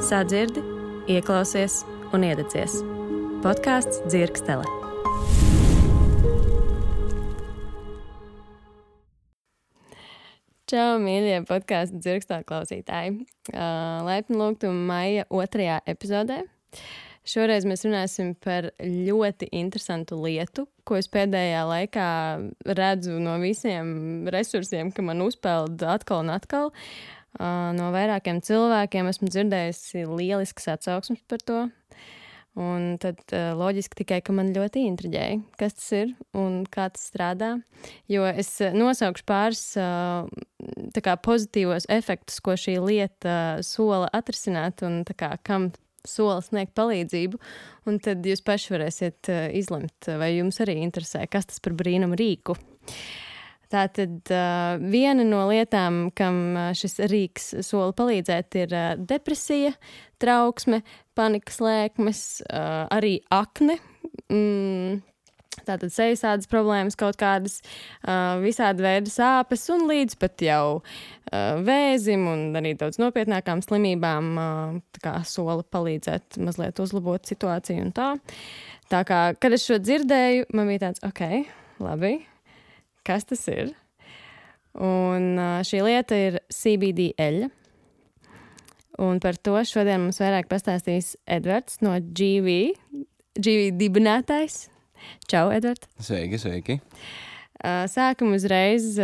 Sadzirdi, ieklausies un iededzies. Podkāsts Dzirkstele. Čau, mīļie podkāstu Dzirkstele klausītāji. Laipni lūgtu maija 2. epizodē. Šoreiz mēs runāsim par ļoti interesantu lietu, ko es pēdējā laikā redzu no visiem resursiem, ka man uzpeld atkal un atkal. No vairākiem cilvēkiem esmu dzirdējusi lieliskas atsauksmes par to. Un tad loģiski tikai, ka man ļoti intriģēja, kas tas ir un kā tas strādā. Jo es nosaukšu pāris tā kā pozitīvos efektus, ko šī lieta sola atrisināt un tā kā kam sola sniegt palīdzību. Un tad jūs paši varēsiet izlemt, vai jums arī interesē, kas tas par brīnumu rīku. Tātad viena no lietām, kam šis rīks sola palīdzēt, ir depresija, trauksme, panikas lēkmes, arī akne, tātad sejas problēmas kaut kādas, visādi veidi sāpes un līdz pat jau vēzim un arī daudz nopietnākām slimībām tā kā sola palīdzēt mazliet uzlabot situāciju un tā. Tā kā, kad es šo dzirdēju, man bija tāds, ok, labi. Kas tas ir? Un šī lieta ir CBD eļļa. Un par to šodien mums vairāk pastāstīs Edvards no GV dibinātājs. Čau, Edvard! Sveiki! Sākam uzreiz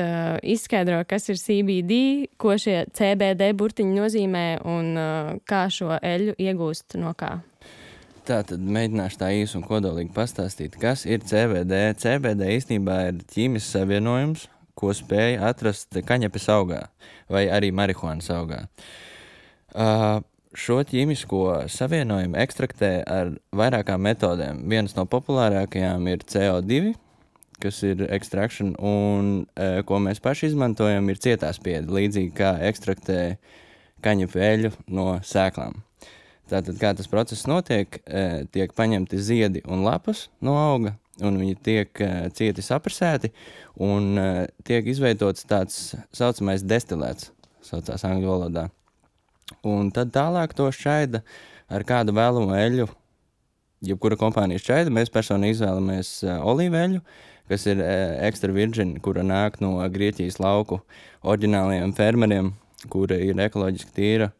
izskaidro, kas ir CBD, ko šie CBD burtiņi nozīmē un kā šo eļļu iegūst no kā. Tātad mēģināšu tā īsi un kodolīgi pastāstīt, kas ir CBD. CBD īstenībā ir ķīmisks savienojums, ko spēja atrast kaņepes augā vai arī marihuānas augā. Šo ķīmisko savienojumu ekstraktē ar vairākām metodēm. Vienas no populārākajām ir CO2, kas ir extraction, un ko mēs paši izmantojam, ir cietā spiede, līdzīgi kā ekstraktē kaņepu eļļu no sēklām. Tātad, kā tas process notiek, tiek paņemti ziedi un lapas no auga, un viņi tiek cieti saprasēti, un tiek izveidots tāds saucamais destilēts, saucās angļu valodā. Un tad tālāk to šķaida ar kādu vēlamo eļļu, jebkura kompānija šķaida. Mēs personīgi izvēlamies olīveļu, kas ir extra virgin, kura nāk no Grieķijas lauku oriģinālajiem fermeriem, kura ir ekoloģiski tīra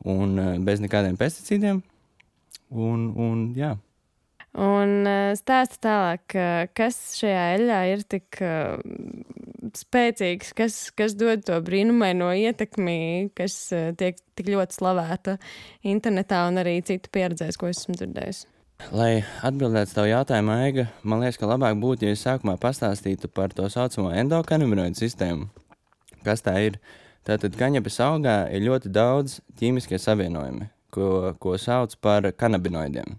un bez nekādiem pesticīdiem, un jā. Un stāsta tālāk, kas šajā eļļā ir tik spēcīgs, kas dod to brīnumaino ietekmi, kas tiek tik ļoti slavēta internetā un arī citu pieredzēs, ko esmu dzirdējusi. Lai atbildētu tavu jautājumu, Aiga, man liekas, ka labāk būtu, ja es sākumā pastāstītu par to saucamo endokanabinoidu sistēmu. Kas tā ir? Tātad kaņepes augā ir ļoti daudz ķīmiskie savienojumi, ko sauc par kanabinoidiem.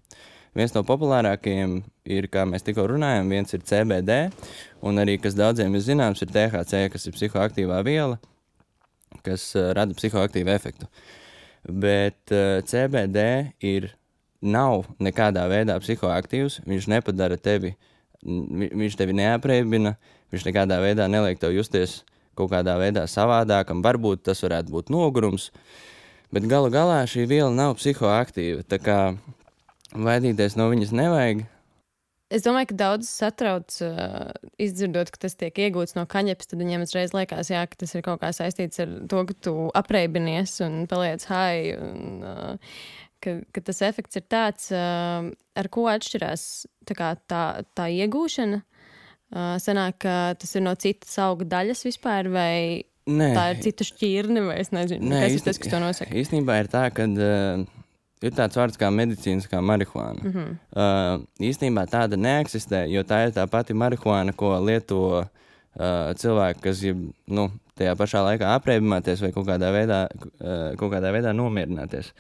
Viens no populārākajiem ir, kā mēs tikko runājam, viens ir CBD, un arī, kas daudziem ir zināms, ir THC, kas ir psihoaktīvā viela, kas rada psihoaktīvu efektu. Bet CBD nav nekādā veidā psihoaktīvs, viņš nepadara tevi, viņš tevi neapreibina, viņš nekādā veidā neliek tev justies kaut kādā veidā savādākam, varbūt tas varētu būt nogurums, bet galu galā šī viela nav psihoaktīva, tā kā vaidīties no viņas nevajag. Es domāju, ka daudz satrauc izdzirdot, ka tas tiek iegūts no kaņepes, tad viņiem uzreiz liekas, jā, ka tas ir kaut kā saistīts ar to, ka tu apreibinies un paliec high, un ka tas efekts ir tāds, ar ko atšķirās tā iegūšana. Sanāk, ka tas ir no citas auga daļas vispār, vai tā ir cita šķirne, vai es nezinu, kas ir tas, kas to nosaka? Īstenībā ir tā, ka ir tāds vārds kā medicīniskā marihuāna. Mm-hmm. Īstenībā tāda neeksistē, jo tā ir tā pati marihuāna, ko lieto cilvēki, kas grib tajā pašā laikā apreibināties vai kaut kādā veidā nomierināties.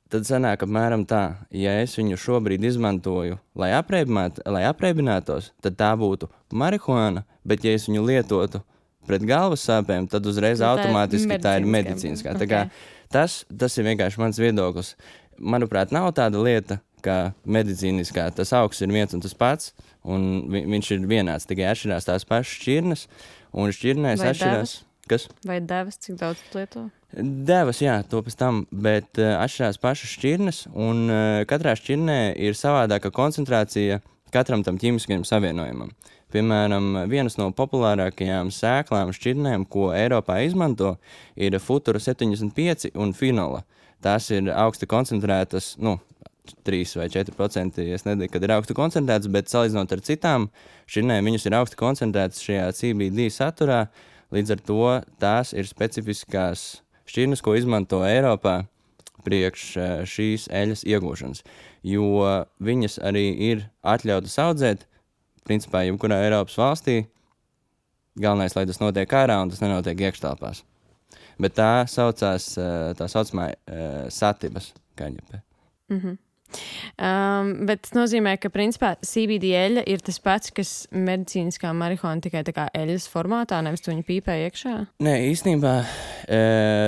Tad sanāk apmēram tā, ja es viņu šobrīd izmantoju, lai apreibinātos, tad tā būtu marihuāna, bet ja es viņu lietotu pret galvas sāpēm, tad uzreiz automātiski tā ir medicīniskā. Tā kā tas ir vienkārši mans viedoklis. Manuprāt, nav tāda lieta, kā medicīniskā. Tas augsts ir viens un tas pats, un viņš ir vienāds, tikai atšķirās tās pašas šķirnes, un šķirnēs atšķirās. Kas? Vai devas, cik daudz tu lieto? Devas, jā, to pēc tam, bet atšķirās pašas šķirnes, un katrā šķirnē ir savādāka koncentrācija katram tam ķīmiskajam savienojumam. Piemēram, vienas no populārākajām sēklām šķirnēm, ko Eiropā izmanto, ir Futura 75 un Finola. Tās ir augsti koncentrētas, 3 vai 4%, es nezinu, kad ir augsti koncentrētas, bet salīdzinot ar citām šķirnēm, viņas ir augsti koncentrētas šajā CBD saturā. Līdz ar to tās ir specifiskās šķirnes, ko izmanto Eiropā priekš šīs eļas iegūšanas, jo viņas arī ir atļautas audzēt, principā, jebkurā Eiropas valstī. Galvenais, lai tas notiek ārā un tas nenotiek iekštelpās. Bet tā saucās, tā saucamā satibas kaņepē. Bet tas nozīmē, ka principā CBD eļļa ir tas pats, kas medicīniskā marihuana tikai tā kā eļļas formātā, nevis tu viņu pīpē iekšā? Nē, īstenībā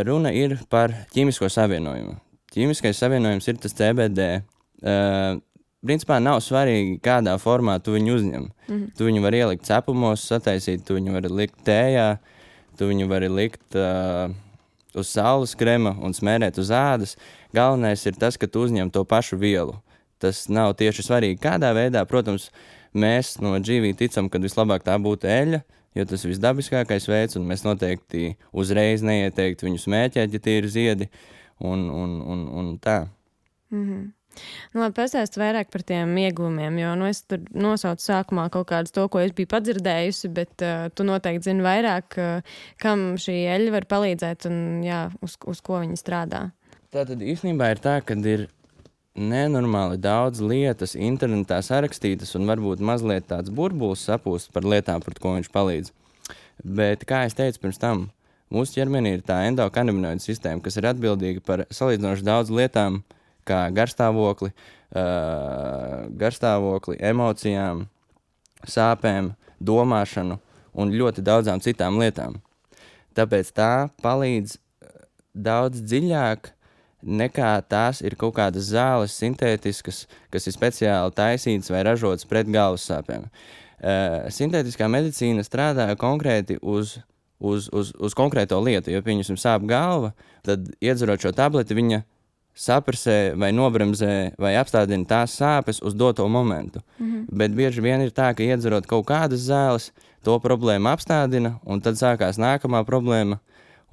runa ir par ķīmisko savienojumu. Ķīmiskais savienojums ir tas CBD. Principā nav svarīgi, kādā formā tu viņu uzņem. Tu viņu vari ielikt cepumos, sataisīt, tu viņu vari likt tējā, tu viņu vari likt uz saules krema un smērēt uz ādas. Galvenais ir tas, ka tu uzņem to pašu vielu. Tas nav tieši svarīgi, kādā veidā. Protams, mēs no GV ticam, ka vislabāk tā būtu eļļa, jo tas ir visdabiskākais veids, un mēs noteikti uzreiz neieteiktu viņu smēķēt, ja tie ir ziedi, un tā. Labi, pastāsti vairāk par tiem ieguvumiem, jo es tur nosaucu sākumā kaut kādus to, ko es biju padzirdējusi, bet tu noteikti zini vairāk, kam šī eļļa var palīdzēt un uz ko viņa strādā. Tātad īstenībā ir tā, ka ir nenormāli daudz lietas internetā sarakstītas un varbūt mazliet tāds burbulis sapūst par lietām, par ko viņš palīdz. Bet, kā es teicu pirms tam, mūsu ķermenī ir tā endokannabinoida sistēma, kas ir atbildīga par salīdzinoši daudz lietām, kā garstāvokli, emocijām, sāpēm, domāšanu un ļoti daudzām citām lietām. Tāpēc tā palīdz daudz dziļāk nekā tās ir kaut kādas zāles sintētiskas, kas ir speciāli taisītas vai ražotas pret galvas sāpēm. Sintētiskā medicīna strādā konkrēti uz konkrēto lietu, jo, pieņemsim, sāp galva, tad iedzerot šo tableti, viņa saprasē vai nobremzē vai apstādina tās sāpes uz doto momentu. Bet bieži vien ir tā, ka iedzerot kaut kādas zāles, to problēmu apstādina, un tad sākās nākamā problēma,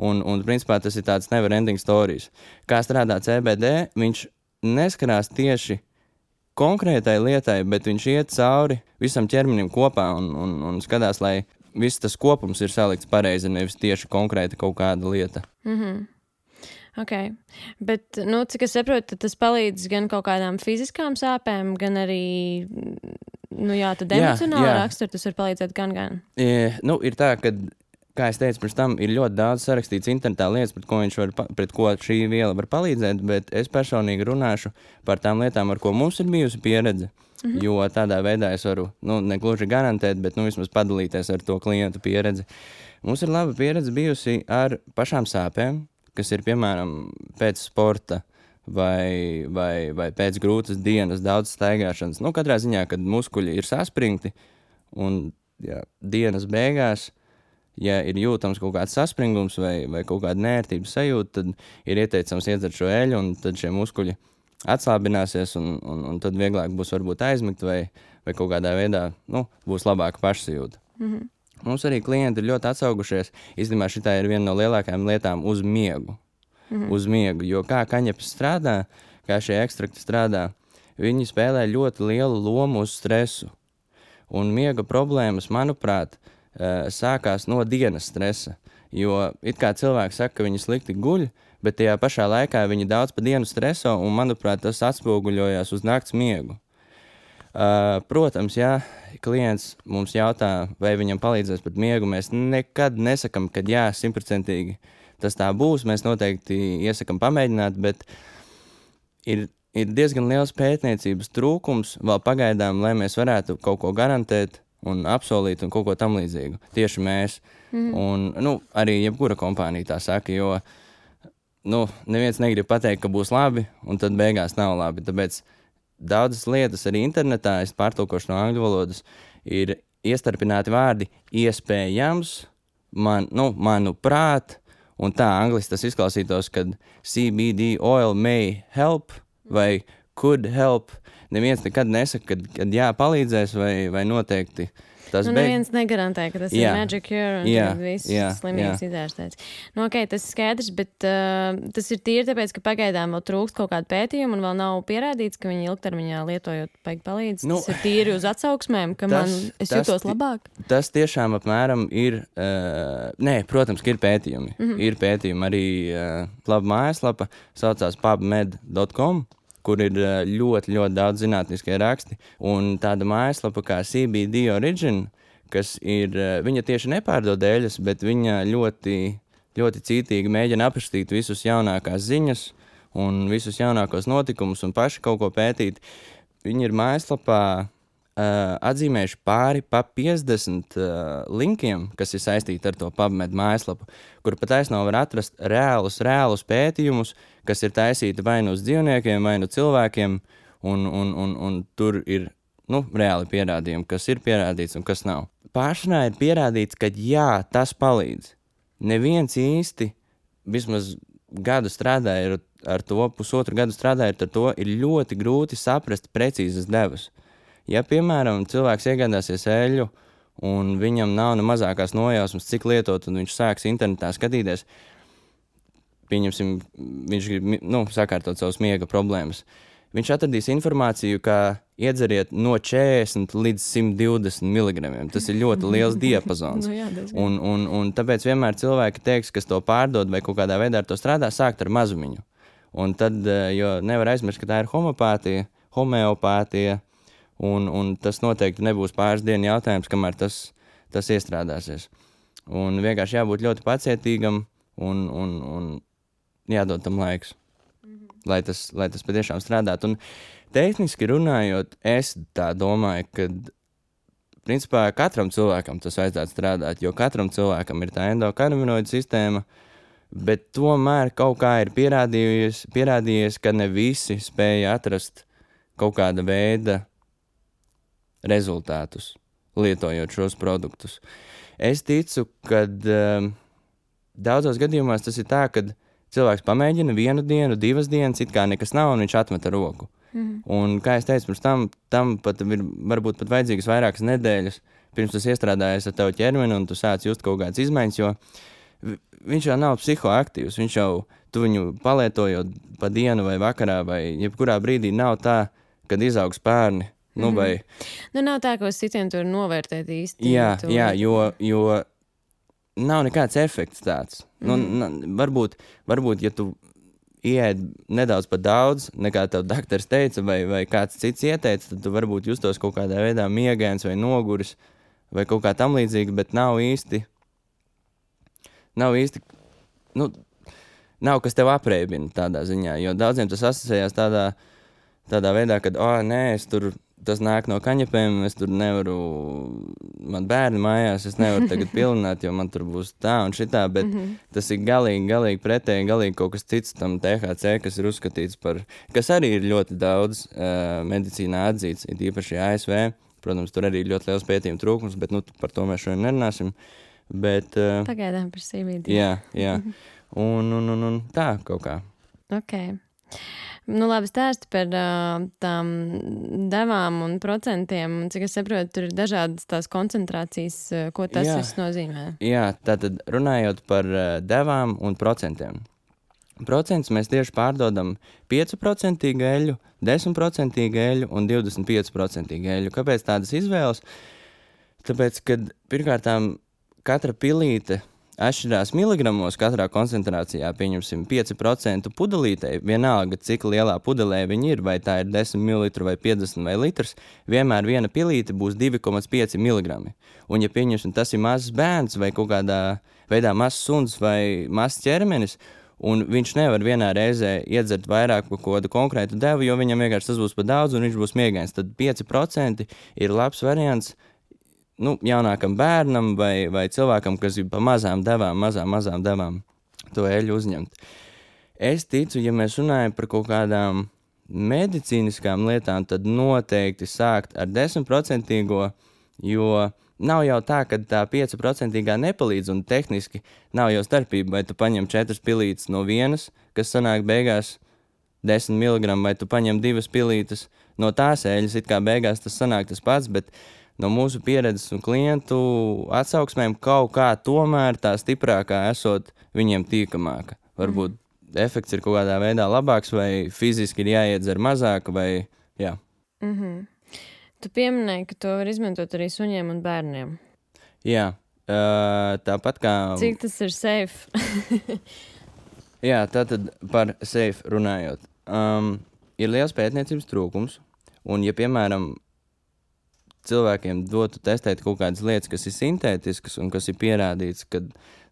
un principā tas ir tāds never ending stories. Kā strādā CBD, viņš neskarās tieši konkrētai lietai, bet viņš iet cauri visam ķermenim kopā un skatās, lai viss tas kopums ir salikts pareizi, nevis tieši konkrēti kaut kāda lieta. Ok, bet, cik es saprotu, tas palīdz gan kaut kādām fiziskām sāpēm, gan arī, tad emocionāli rakstur, tas var palīdzēt gan. Ir tā, ka, kā es teicu pirms tam, ir ļoti daudz sarakstīts internetā lietas, pret ko šī viela var palīdzēt, bet es personīgi runāšu par tām lietām, ar ko mums ir bijusi pieredze, jo tādā veidā es varu, negluži garantēt, bet, vismaz padalīties ar to klientu pieredzi. Mums ir laba pieredze bijusi ar pašām sāpēm, kas ir, piemēram, pēc sporta vai pēc grūtas dienas, daudz staigāšanas. Katrā ziņā, kad muskuļi ir saspringti un dienas beigās, ja ir jūtams kaut kāds saspringums vai kaut kāda nērtības sajūta, tad ir ieteicams iedzert šo eļu, un tad šie muskuļi atslābināsies, un tad vieglāk būs varbūt aizmigt vai kaut kādā veidā, būs labāka pašsajūta. Mums arī klienti ir ļoti atsaugušies. Īstenībā šitā ir viena no lielākajām lietām uz miegu. Uz miegu, jo kā kaņepes strādā, kā šie ekstrakti strādā, viņi spēlē ļoti lielu lomu uz stresu. Un miega problēmas, manuprāt, sākās no dienas stresa. Jo it kā cilvēki saka, ka viņi slikti guļ, bet tajā pašā laikā viņi daudz pa dienu streso, un, manuprāt, tas atspoguļojās uz nakts miegu. Protams, klients mums jautā, vai viņam palīdzēs pat miegu. Mēs nekad nesakam, ka 100% tas tā būs. Mēs noteikti iesakam pamēģināt, bet ir diezgan liels pētniecības trūkums vēl pagaidām, lai mēs varētu kaut ko garantēt un apsolīt un kaut ko tam līdzīgu. Tieši mēs. Un, arī jebkura kompānija tā saka, jo neviens negrib pateikt, ka būs labi, un tad beigās nav labi. Tāpēc daudzas lietas arī internetā, es pārtulkošu no angļu valodas, ir iestarpināti vārdi iespējams manuprāt, un tā angliski tas izklausītos, kad CBD oil may help vai could help. Neviens nekad nesaka, kad jā, palīdzēs vai noteikti tas neviens negarantē, ka tas ir magic cure un tad viss slimības izārstēts. Tas ir skaidrs, bet tas ir tīri tāpēc, ka pagaidām vēl trūkst kaut kādu pētījumu un vēl nav pierādīts, ka viņi ilgtermiņā lietojot palīdz. Tas ir tīri uz atsauksmēm, ka es jūtos labāk. Tas tiešām apmēram ir, protams, ka ir pētījumi. Ir pētījumi arī laba mājaslapa, saucās pubmed.com, kur ir ļoti, ļoti daudz zinātniskie raksti. Un tāda mājaslapa kā CBD Origin, kas ir, viņa tieši nepārdod eļas, bet viņa ļoti, ļoti cītīgi mēģina aprakstīt visus jaunākās ziņas un visus jaunākos notikumus un paši kaut ko pētīt. Viņi ir mājaslapā atzīmējuši pāri pa 50 linkiem, kas ir saistīti ar to PubMed mājaslapu, kur pat taisnā var atrast reālus pētījumus, kas ir taisīti vai nu uz dzīvniekiem, vai nu cilvēkiem, un tur ir reāli pierādījumi, kas ir pierādīts un kas nav. Pāršanā ir pierādīts, ka jā, tas palīdz. Neviens īsti, vismaz gadu strādāja ar to, pusotru gadu strādājot ar to, ir ļoti grūti saprast precīzas devas. Ja, piemēram, cilvēks iegādāsies eļļu un viņam nav ne mazākās nojausmas, cik lietot, un viņš sāks internetā skatīties, pieņemsim, viņš grib sakārtot savus miega problēmas. Viņš atradīs informāciju, kā iedzeriet no 40 līdz 120 mg. Tas ir ļoti liels diapazons. Un tāpēc vienmēr cilvēki teiks, kas to pārdod vai kaut kādā veidā ar to strādā, sākt ar mazumiņu. Un tad, jo nevar aizmirst, ka tā ir homeopātija, un tas noteikti nebūs pāris dienu jautājums, kamēr tas iestrādāsies. Un vienkārši jābūt ļoti pacietīgam un jādod tam laiks, lai tas patiešām strādātu. Un tehniski runājot, es tā domāju, ka principā katram cilvēkam tas vajadzētu strādāt, jo katram cilvēkam ir tā endokanabinoida sistēma, bet tomēr kaut kā ir pierādījies, ka ne visi spēja atrast kaut kāda veida rezultātus, lietojot šos produktus. Es ticu, ka daudzos gadījumos tas ir tā, ka cilvēks pamēģina 1 dienu, 2 dienas, it kā nekas nav, un viņš atmeta roku. Un, kā es teicu, pirms tam pat ir varbūt pat vajadzīgas vairākas nedēļas, pirms tas iestrādājies ar tavu ķermeni, un tu sāc just kaut kādas izmaiņas, jo viņš jau nav psihoaktīvs, tu viņu palietojot pa dienu vai vakarā, vai jebkurā brīdī nav tā, kad izaug spērni. Nav tā, ka uz citiem tur novērtēt īsti. Jā, jo nav nekāds efekts tāds. Varbūt, ja tu ieēd nedaudz par daudz, nekā tev daktars teica, vai kāds cits ieteica, tad tu varbūt justos kaut kādā veidā miegains vai noguris, vai kaut kā tam līdzīgi, bet nav īsti, nav kas tev apreibina tādā ziņā, jo daudziem tas asociējās tādā veidā, kad, tas nāk no kaņepēm, es tur nevaru, man bērni mājās, es nevaru tagad pilināt, jo man tur būs tā un šitā, bet tas ir galīgi pretēji, galīgi kaut kas cits tam THC, kas ir uzskatīts par, kas arī ir ļoti daudz medicīnā atzīts, ir īpaši ASV, protams, tur arī ir ļoti liels pētījuma trūkums, bet par to mēs šodien nerunāsim, bet... Pagaidām par CBD. Jā, un tā kaut kā. Ok. Labi, stāsti par tām devām un procentiem, un cik es saprotu, tur ir dažādas tās koncentrācijas, ko tas viss nozīmē. Jā, tātad runājot par devām un procentiem. Procentus mēs tieši pārdodam 5% eļu, 10% eļu un 25% eļu. Kāpēc tādas izvēles? Tāpēc, kad pirmkārtām katra pilīte atšķirās miligramos katrā koncentrācijā, pieņemsim 5% pudelītei, vienalga, cik lielā pudelē viņi ir, vai tā ir 10 ml vai 50 vai litrs, vienmēr viena pilīte būs 2,5 mg. Un ja pieņemsim, tas ir mazs bērns vai kaut kādā veidā mazs suns vai mazs ķermenis, un viņš nevar vienā reizē iedzert vairāk par kādu konkrētu devu, jo viņam vienkārši tas būs par daudz un viņš būs miegains, tad 5% ir labs variants jaunākam bērnam vai cilvēkam, kas ir pa mazām devām to eļu uzņemt. Es ticu, ja mēs runājam par kaut kādām medicīniskām lietām, tad noteikti sākt ar 10%, jo nav jau tā, ka tā 5% nepalīdz, un tehniski nav jau starpība, vai tu paņem 4 pilītes no vienas, kas sanāk beigās 10 mg, vai tu paņem 2 pilītes no tās eļas, it kā beigās tas sanāk tas pats, bet no mūsu pieredzes un klientu atsauksmēm kaut kā tomēr tā stiprākā esot viņiem tīkamāka. Varbūt efekts ir kaut kādā veidā labāks, vai fiziski ir jāiedzer mazāk, vai jā. Tu pieminēji, ka to var izmantot arī suņiem un bērniem. Jā, tāpat kā... Cik tas ir safe? Jā, tātad par safe runājot. Ir liels pētniecības trūkums, un ja, piemēram, cilvēkiem dotu testēt kaut kādas lietas, kas ir sintētiskas un kas ir pierādīts, ka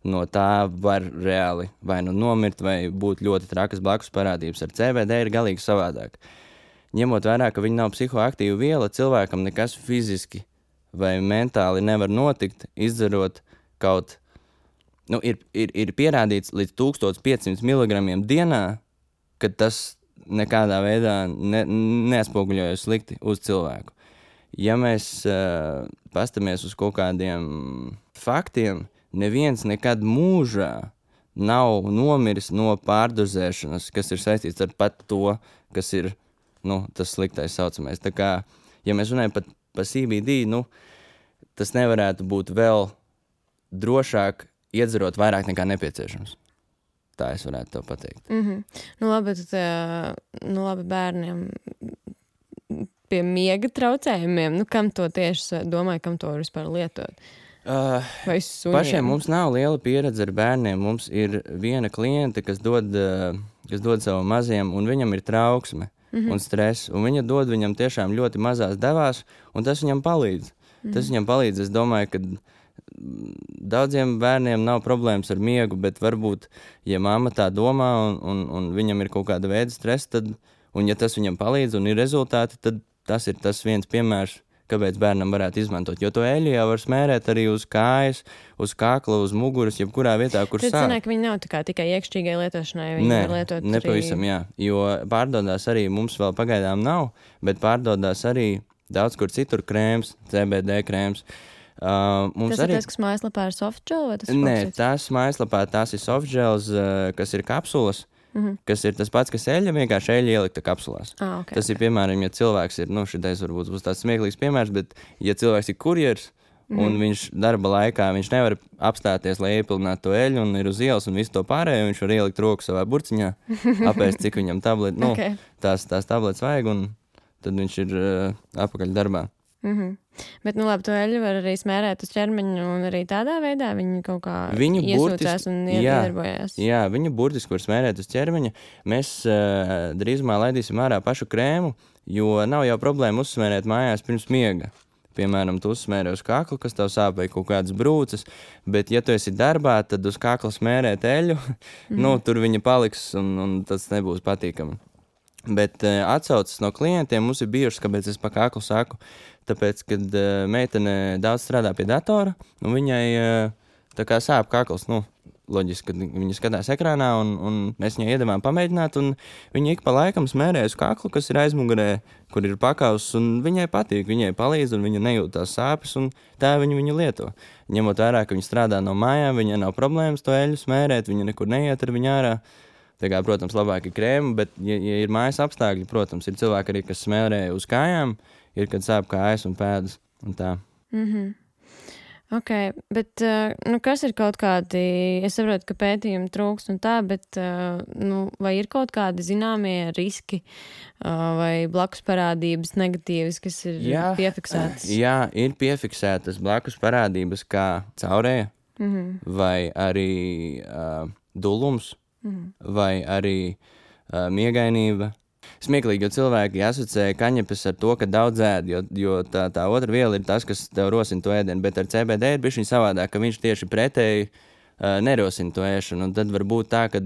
no tā var reāli vai nu nomirt, vai būt ļoti trakas blakus parādības. Ar CBD ir galīgi savādāk. Ņemot vērā, ka viņi nav psihoaktīva viela, cilvēkam nekas fiziski vai mentāli nevar notikt, izdzerot kaut... Ir pierādīts līdz 1500 mg dienā, ka tas nekādā veidā neatspoguļojas slikti uz cilvēku. Ja mēs pastamies uz kaut kādiem faktiem, neviens nekad mūžā nav nomiris no pārdozēšanas, kas ir saistīts ar pat to, kas ir tas sliktais saucamais. Tā kā, ja mēs runājam par CBD, tas nevarētu būt vēl drošāk iedzerot vairāk nekā nepieciešams. Tā es varētu tev pateikt. Labi bērniem pie miega traucējumiem, kam to tieši domāju, kam to var vispār lietot? Vai suņiem? Pašiem mums nav liela pieredze ar bērniem. Mums ir viena kliente, kas dod savam maziem, un viņam ir trauksme un stress, un viņa dod viņam tiešām ļoti mazās devās, un tas viņam palīdz. Tas viņam palīdz, es domāju, ka daudziem bērniem nav problēmas ar miegu, bet varbūt, ja mamma tā domā un viņam ir kaut kāda veida stress, tad, un ja tas viņam palīdz un ir rezultāti, tad tas ir tas viens piemērs, kāpēc bērnam varētu izmantot. Jo to eļļu jau var smērēt arī uz kājas, uz kakla, uz muguras, jebkurā vietā, kur sāp. Tad sanāk, viņi nav tikai iekšķīgai lietošanai, viņi var lietot nepavisam, jā. Jo pārdodās arī, mums vēl pagaidām nav, bet pārdodās arī daudz kur citur krēms, CBD krēms. Tas ir tas, kas mājaslapā ir softgel? Nē, tās mājaslapā tās ir softgels, kas ir kapsulas, kas ir tas pats, kas eļļa, vienkārši eļļa ielikta kapsulās. Okay, tas ir, piemēram, ja cilvēks ir, šitais varbūt būs tāds smieklīgs piemērs, bet ja cilvēks ir kurjers un viņš darba laikā, viņš nevar apstāties, lai iepilnātu to eļļu un ir uz ielas un visu to pārējo, viņš var ielikt roku savā burciņā, apēst, cik viņam tableti, tās tabletes vajag, un tad viņš ir apakaļ darbā. Bet, labi, to eļļu var arī smērēt uz ķermeņa, un arī tādā veidā viņi kaut kā iesūcās un iedarbojās. Jā, viņu burtiski var smērēt uz ķermeņa. Mēs drīzumā laidīsim ārā pašu krēmu, jo nav jau problēma uzsmērēt mājās pirms miega. Piemēram, tu uzsmērē uz kaklu, kas tev sāp vai kaut kādas brūces, bet ja tu esi darbā, tad uz kakla smērēt eļļu, tur viņa paliks un tas nebūs patīkami. Bet atsaucas no klientiem mums ir bijušas, kāpēc es pa kaklu saku, tāpēc, kad meitene daudz strādā pie datora, un viņai tā kā sāp kakls, loģiski, kad viņa skatās ekrānā, un mēs viņai iedavām pamēģināt, un viņa ik pa laikam smērē uz kaklu, kas ir aizmugurē, kur ir pakauss, un viņai patīk, viņai palīdz, un viņa nejūt tās sāpes, un tā viņu lieto. Ņemot vērā, ka viņa strādā no mājām, viņai nav problēmas to eļļu smērēt, viņa nekur neiet ar viņu ārā. Tā kā, protams, labāk ir krēma, bet, ja ir mājas apstākļi, protams, ir cilvēki arī, kas smērē uz kājām, ir, kad sāp kājas un pēdas un tā. Ok, bet kas ir kaut kādi, es saprotu, ka pētījumi trūkst un tā, bet vai ir kaut kādi zināmie riski vai blakus parādības negatīvas, kas ir piefiksētas? Jā, ir piefiksētas blakus parādības kā caurēja vai arī dulums. Vai arī miegainība. Smieklīgi, jo cilvēki asociē kaņepes ar to, ka daudz ēd, jo tā otra viela ir tas, kas tev rosina to ēdienu, bet ar CBD ir bišķiņ savādāk, ka viņš tieši pretēji nerosina to ēšanu, un tad var būt tā, ka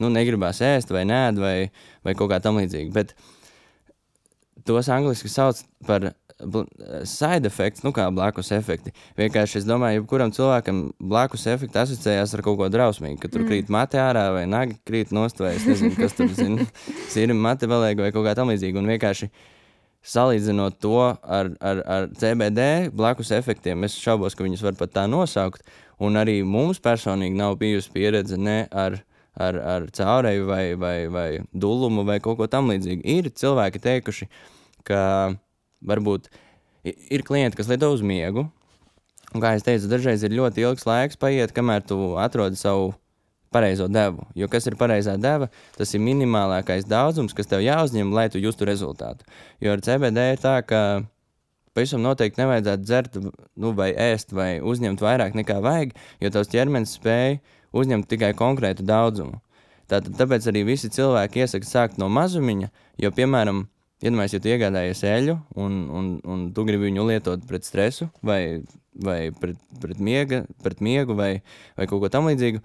negribās ēst vai nēd vai kaut kā tam līdzīgi, bet tos angliski sauc par side effects, kā blakus efekti. Vienkārši es domāju, jebkuram cilvēkam blakus efekti asociējās ar kaut ko drausmīgu, ka tur krīt mate ārā vai nagi krīt nost vai es nezinu, kas tur sīri mate valēga vai kaut kā tam līdzīgi. Un vienkārši salīdzinot to ar CBD blakus efektiem, es šaubos, ka viņus var pat tā nosaukt, un arī mums personīgi nav bijusi pieredze ne ar caureju vai dulumu vai kaut ko tam līdzīgu. Ir cilvēki teikuši, ka varbūt ir klienti, kas lieto uz miegu, un kā es teicu, dažreiz ir ļoti ilgs laiks paiet, kamēr tu atrodi savu pareizo devu. Jo kas ir pareizā deva, tas ir minimālākais daudzums, kas tev jāuzņem, lai tu justu rezultātu. Jo ar CBD ir tā, ka pavisam noteikti nevajadzētu dzert, vai ēst, vai uzņemt vairāk nekā vajag, jo tavs ķermenis spēj uzņemt tikai konkrētu daudzumu. Tāpēc arī visi cilvēki iesaka sākt no mazumiņa, jo, piemēram, iedomājies, ja tu iegādājies eļu un tu gribi viņu lietot pret stresu vai pret miegu vai kaut ko tam līdzīgu,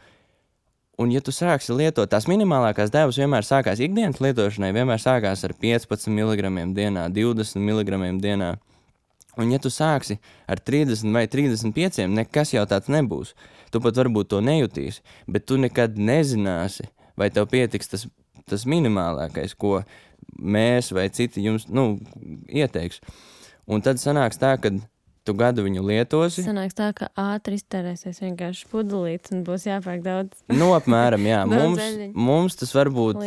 un ja tu sāksi lietot, tās minimālākās devas vienmēr sākās ikdienas lietošanai, vienmēr sākās ar 15 mg dienā, 20 mg dienā. Un ja tu sāksi ar 30 vai 35, nekas jau tāds nebūs. Tu pat varbūt to nejutīsi, bet tu nekad nezināsi, vai tev pietiks tas minimālākais, ko mēs vai citi jums ieteiks. Un tad sanāks tā, ka tu gadu viņu lietosi. Sanāks tā, ka ātri iztērēsies vienkārši pudelītes un būs jāpērk daudz. Apmēram, jā. mums tas varbūt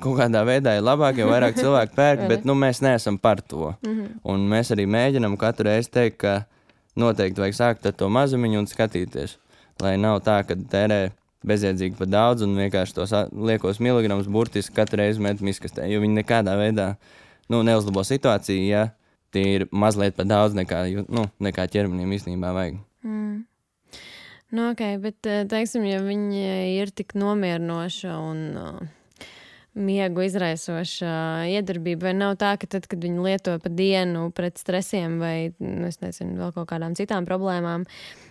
kaut kādā veidā ir labāk, jo vairāk cilvēku pērk, bet mēs neesam par to. Un mēs arī mēģinam katru reizi teikt, ka noteikti vajag sākt ar to mazumiņu un skatīties. Lai nav tā, ka tērē bezjēdzīgi pa daudz un vienkārši tos liekos miligramus burtiski katru reizi met miskastē, jo viņi nekādā veidā neuzlabo situāciju, ja tie ir mazliet pa daudz nekā ķermenim īstenībā vajag. Ok, bet teiksim, ja viņi ir tik nomierinoša un miegu izraisoša iedarbība, vai nav tā, ka tad, kad viņi lieto pa dienu pret stresiem vai, es nezinu, vēl kaut kādām citām problēmām,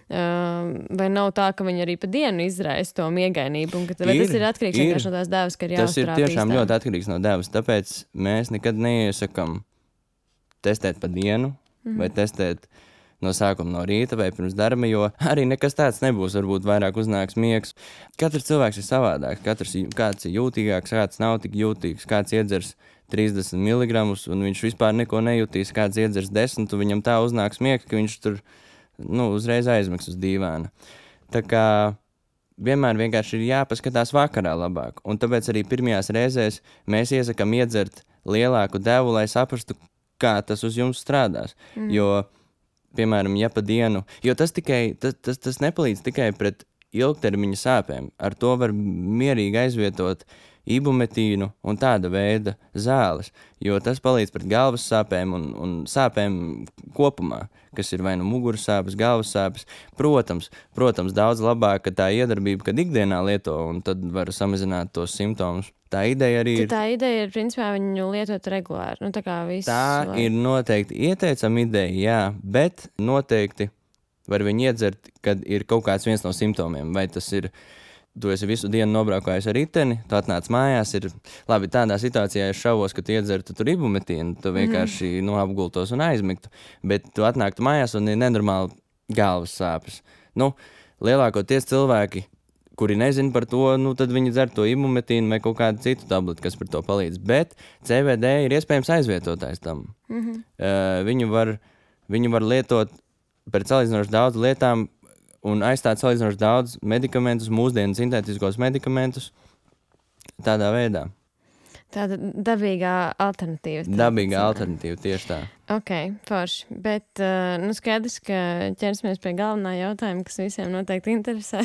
vai nav tā, ka viņi arī pa dienu izraisa to miegainību, un vai tas ir atkarīgs vienkārši no tās devas, ka ir jāuzturā Tas ir tiešām ļoti atkarīgs no devas, tāpēc mēs nekad neiesakam testēt pa dienu, vai testēt no sākuma no rīta vai pirms darba, jo arī nekas tāds nebūs, varbūt vairāk uznāks miegs. Katrs cilvēks ir savādāks, kāds ir jūtīgāks, kāds nav tik jūtīgs, kāds iedzers 30 mg un viņš vispār neko nejūtīs, kāds iedzers 10, un viņam tā uznāks miegs, ka viņš tur uzreiz aizmigs uz dīvāna. Tā kā vienmēr vienkārši ir jāpaskatās vakarā labāk, un tāpēc arī pirmajās reizēs mēs iesakam iedzert lielāku devu, lai saprastu, kā tas uz jums strādās. Jo, piemēram, ja pa dienu, jo tas nepalīdz tikai pret ilgtermiņa sāpēm. Ar to var mierīgi aizvietot ibumetīnu un tāda veida zāles, jo tas palīdz pret galvas sāpēm un sāpēm kopumā, kas ir vai muguras sāpes, galvas sāpes. Protams, daudz labāk, ka tā iedarbība, kad ikdienā lieto, un tad var samazināt tos simptomus. Tā ideja arī ir. Tā ideja ir, principā, viņu lietot regulāri. Tā ir noteikti ieteicama ideja, jā, bet noteikti var viņu iedzert, kad ir kaut kāds viens no simptomiem. Vai tas ir, tu esi visu dienu nobraukājis ar riteni, tu atnāc mājās, ir labi, tādā situācijā es šaubos, ka tu iedzertu tur ibumetīnu, tu vienkārši apgultos un aizmigtu, bet tu atnāktu mājās un ir nenormāli galvas sāpes. Lielākoties cilvēki, kuri nezina par to, tad viņi dzer to ibumetīnu vai kaut kādu citu tableti, kas par to palīdz. Bet CBD ir iespējams aizvietotājs tam. Viņu var lietot pret salīdzinoši daudz lietām un aizstāt salīdzinoši daudz medikamentus, mūsdienu sintētiskos medikamentus tādā veidā. Tāda dabīgā alternatīva. Dabīgā alternatīva, tieši tā. Ok, forši. Bet skaidrs, ka ķersimies pie galvenā jautājuma, kas visiem noteikti interesē.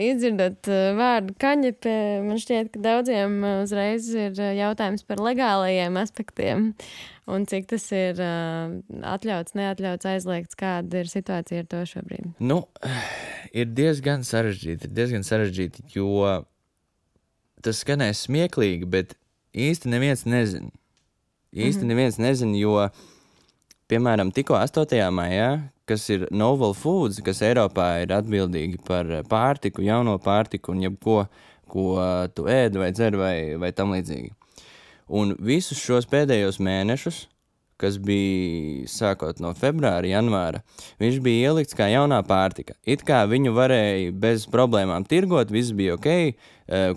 Izdzirdot vārdu kaņepe, man šķiet, ka daudziem uzreiz ir jautājums par legālajiem aspektiem un cik tas ir atļauts, neatļauts, aizliegts, kāda ir situācija ar to šobrīd. Ir diezgan sarežģīti, jo tas skanēs smieklīgi, bet īsti neviens nezina. Neviens nezina, jo, piemēram, tikko 8. maijā, kas ir Novel Foods, kas Eiropā ir atbildīgi par pārtiku, jauno pārtiku un jebko, ko tu ēdi vai dzer vai tam līdzīgi. Un visus šos pēdējos mēnešus kas bija sākot no februāra, janvāra, viņš bija ielikts kā jaunā pārtika. It kā viņu varēja bez problēmām tirgot, viss bija ok,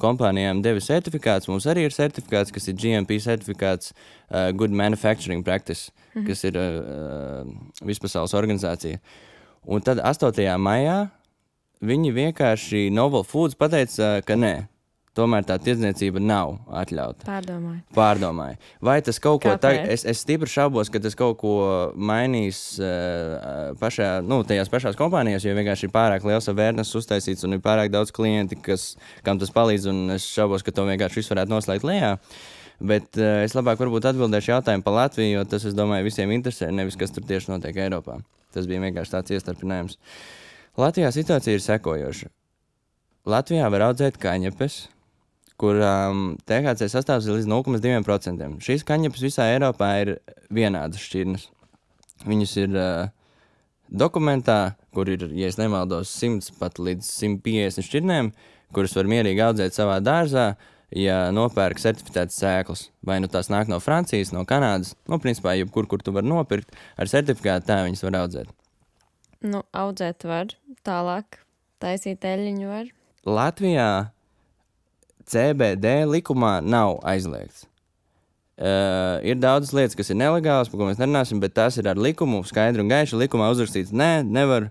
kompānijām deva certifikāts, mums arī ir certifikāts, kas ir GMP certifikāts, Good Manufacturing Practice, kas ir vispasaules organizācija. Un tad 8. maijā viņi vienkārši Novel Foods pateica, ka nē. Tomēr tā tirdzniecība nav atļauta. Pārdomāju. Vai tas kaut ko tagad... Es stipri šaubos, ka tas kaut ko mainīs tajās pašās kompānijās, jo vienkārši ir pārāk liels awareness uztaisīts un ir pārāk daudz klienti, kam tas palīdz, un es šaubos, ka to vienkārši visu varētu noslēgt lejā. Bet es labāk varbūt atbildēšu jautājumu par Latviju, jo tas, es domāju, visiem interesē, nevis kas tur tieši notiek Eiropā. Tas bija vienkārši tāds iestarpinājums. Latvijā situācija ir sekojoša. Latvijā var audzēt kaņepes, kurām THC sastāvs ir līdz 0,2%. Šīs kaņepes visā Eiropā ir vienādas šķirnes. Viņas ir dokumentā, kur ir, ja es nemaldos, 100 pat līdz 150 šķirnēm, kuras var mierīgi audzēt savā dārzā, ja nopērk certificētas sēklas. Vai nu tās nāk no Francijas, no Kanādas, principā jebkur, kur tu var nopirkt, ar certifikātu tā viņas var audzēt. Audzēt var, tālāk taisīt eļļiņu var. Latvijā CBD likumā nav aizliegts. Ir daudzas lietas, kas ir nelegālas, par ko mēs nerunāsim, bet tās ir ar likumu, skaidri un gaiši likumā uzrakstīts, nevar,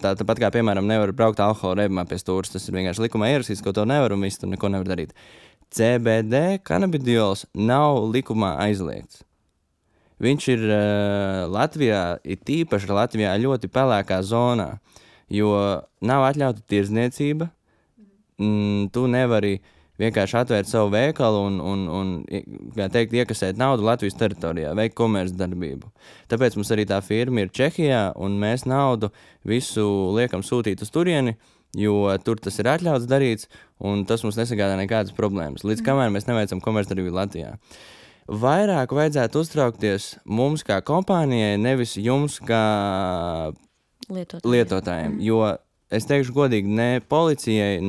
tāpat kā, piemēram, nevar braukt alkohola reibumā pie stūras, tas ir vienkārši likumā ierakstīts, ka to nevar un viss tur neko nevar darīt. CBD kanabidiols nav likumā aizliegts. Viņš ir Latvijā, ir tīpaši Latvijā ļoti pelēkā zonā, jo nav atļauta tirdzniecība. Tu nevari vienkārši atvērt savu veikalu un kā teikt, iekasēt naudu Latvijas teritorijā, veikt komercdarbību. Tāpēc mums arī tā firma ir Čehijā, un mēs naudu visu liekam sūtīt uz turieni, jo tur tas ir atļauts darīts, un tas mums nesagādā nekādas problēmas. Līdz kamēr mēs neveicam komercdarbību Latvijā. Vairāk vajadzētu uztraukties mums kā kompānijai, nevis jums kā lietotājiem, jo es teikšu godīgi, ne policijai,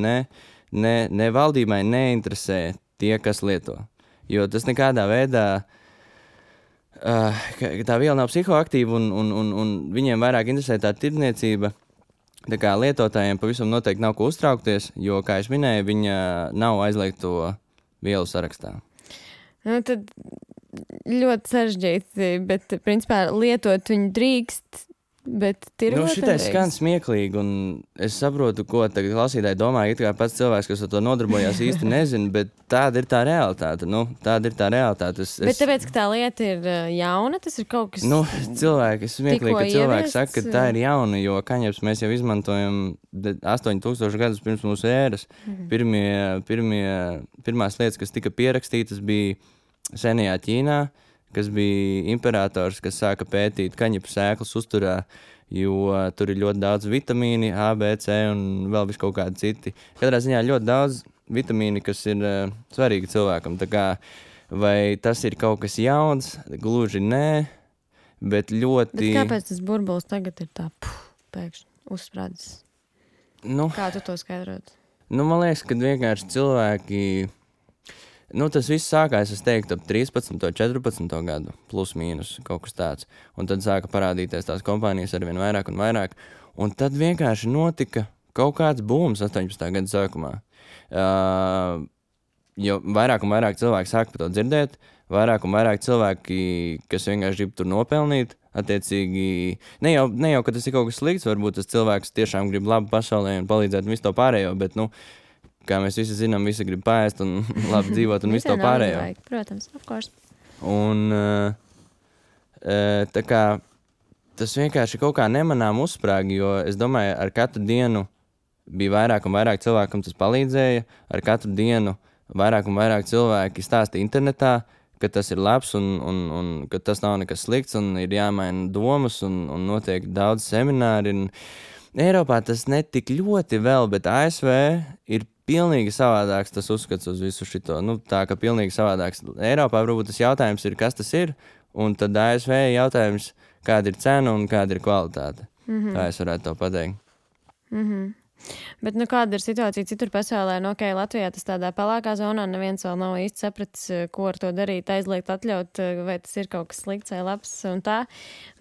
ne valdībai neinteresē tie, kas lieto. Jo tas nekādā veidā, tā viela nav psihoaktīva un viņiem vairāk interesē tā tirdzniecība. Tā kā lietotājiem pavisam noteikti nav ko uztraukties, jo, kā es minēju, viņa nav aizliegto vielu sarakstā. Tad ļoti sarežģīti, bet principā lietot viņu drīkst. Bet šitais skan smieklīgi, un es saprotu, ko tagad klausītāji domā, it kā pats cilvēks, kas ar to nodarbojās, īsti nezina, bet tāda ir tā realitāte. Tāda ir tā realitāte. Bet tāpēc, ka tā lieta ir jauna, tas ir kaut kas... Es smieklīgi, ka cilvēki saka, ka tā ir jauna, jo kaņepes mēs jau izmantojam 8000 gadus pirms mūsu ēras. Pirmās lietas, kas tika pierakstītas, bija senajā Ķīnā, kas bija imperators, kas sāka pētīt kaņepu sēklas uzturā, jo tur ir ļoti daudz vitamīni, A, B, C un vēl visu kaut kādi citi. Katrā ziņā ļoti daudz vitamīni, kas ir svarīgi cilvēkam. Tā kā, vai tas ir kaut kas jauns? Gluži nē, bet ļoti... Bet kāpēc tas burbulis tagad ir tā pēkšņi uzsprādzis? Kā tu to skaidrot? Man liekas, ka vienkārši cilvēki... tas viss sākās, es teiktu, ap 13. 14. gadu, plus mīnus, kaut kas tāds. Un tad sāka parādīties tās kompānijas arvien vairāk un vairāk. Un tad vienkārši notika kaut kāds būms 18. gada sākumā. Jo vairāk un vairāk cilvēki sāka par to dzirdēt, vairāk un vairāk cilvēki, kas vienkārši grib tur nopelnīt, attiecīgi, ne jau, ka tas ir kaut kas slikts, varbūt tas cilvēks tiešām grib labu pasaulē un palīdzēt un visu to pārējo, bet, kā mēs visi zinām, visi grib paēst un labi dzīvot un visu to pārējo. Protams, of course. Un tā kā tas vienkārši kaut kā nemanām uzsprāgi, jo es domāju, ar katru dienu bija vairāk un vairāk cilvēkam tas palīdzēja, ar katru dienu vairāk un vairāk cilvēki stāsta internetā, ka tas ir labs un ka tas nav nekas slikts un ir jāmaina domas un notiek daudz semināri. Eiropā tas netik ļoti vēl, bet ASV ir pilnīgi savādāks tas uzskats uz visu šito. Tā ka pilnīgi savādāks. Eiropā varbūt tas jautājums ir, kas tas ir, un tad ASV jautājums, kāda ir cena un kāda ir kvalitāte. Tā es varētu to pateikt. Bet kāda ir situācija citur pasaulē? Latvijā tas tādā pelēkā zonā neviens vēl nav īsti sapratis, ko ar to darīt, aizliegt, atļaut, vai tas ir kaut kas slikts vai labs un tā.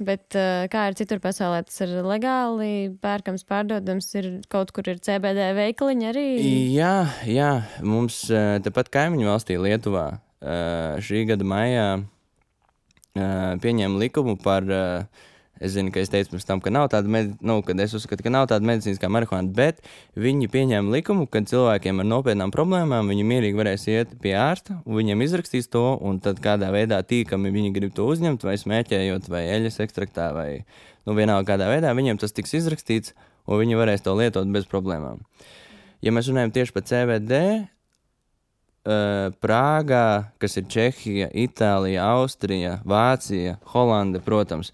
Bet kā ir citur pasaulē? Tas ir legāli pērkams, pārdodams, ir kaut kur ir CBD veikaliņi arī? Jā, mums tepat kaimiņu valstī Lietuvā šī gada maijā pieņēma likumu par... Es zinu, ka es teicu pirms tam, ka nav tāda, kad es uzskatu, ka nav tāda medicīniskā marihuāna, bet viņi pieņēma likumu, ka cilvēkiem ar nopietnām problēmām viņi mierīgi varēs iet pie ārsta, un viņiem izrakstīs to, un tad kādā veidā tīkami viņi grib to uzņemt, vai smēķējot, vai eļas ekstraktā, vai vienalga kādā veidā, viņiem tas tiks izrakstīts, un viņi varēs to lietot bez problēmām. Ja mēs runājam tieši par CBD, Prāgā, kas ir Čehija, Itālija, Austrija, Vācija, Holanda, protams,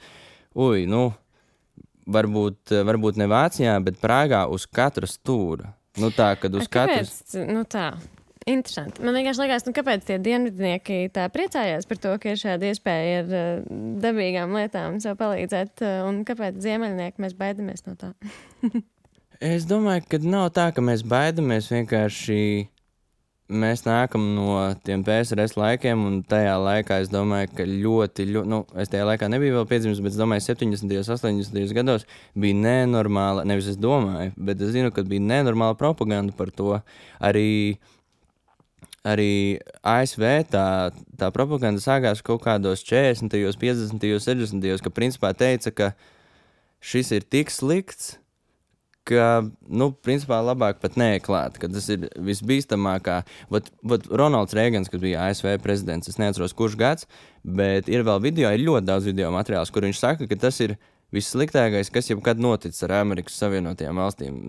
varbūt ne Vācijā, bet Prāgā uz katra stūra. Tā, kad uz katras... Tā, interesanti. Man vienkārši liekas, kāpēc tie dienvidnieki tā priecājās par to, ka ir šāda iespēja ar dabīgām lietām sev palīdzēt, un kāpēc ziemeļnieki mēs baidamies no tā? Es domāju, ka nav tā, ka mēs baidamies, vienkārši mēs nākam no tiem PSRS laikiem, un tajā laikā es domāju, ka ļoti, es tajā laikā nebiju vēl piedzimis, bet es domāju, 70. 80. gados bija nenormāla, nevis es domāju, bet es zinu, ka bija nenormāla propaganda par to. Arī ASV tā propaganda sākās kaut kādos 40., 50., 60., ka principā teica, ka šis ir tik slikts, ka, principā labāk pat neklāt, ka tas ir visbīstamākā. Ronalds Reigans, kas bija ASV prezidents, es neatceros, kurš gads, bet ir vēl ir ļoti daudz video materiāls, kur viņš saka, ka tas ir vissliktākais, kas jebkad noticis ar Amerikas Savienotajām valstīm.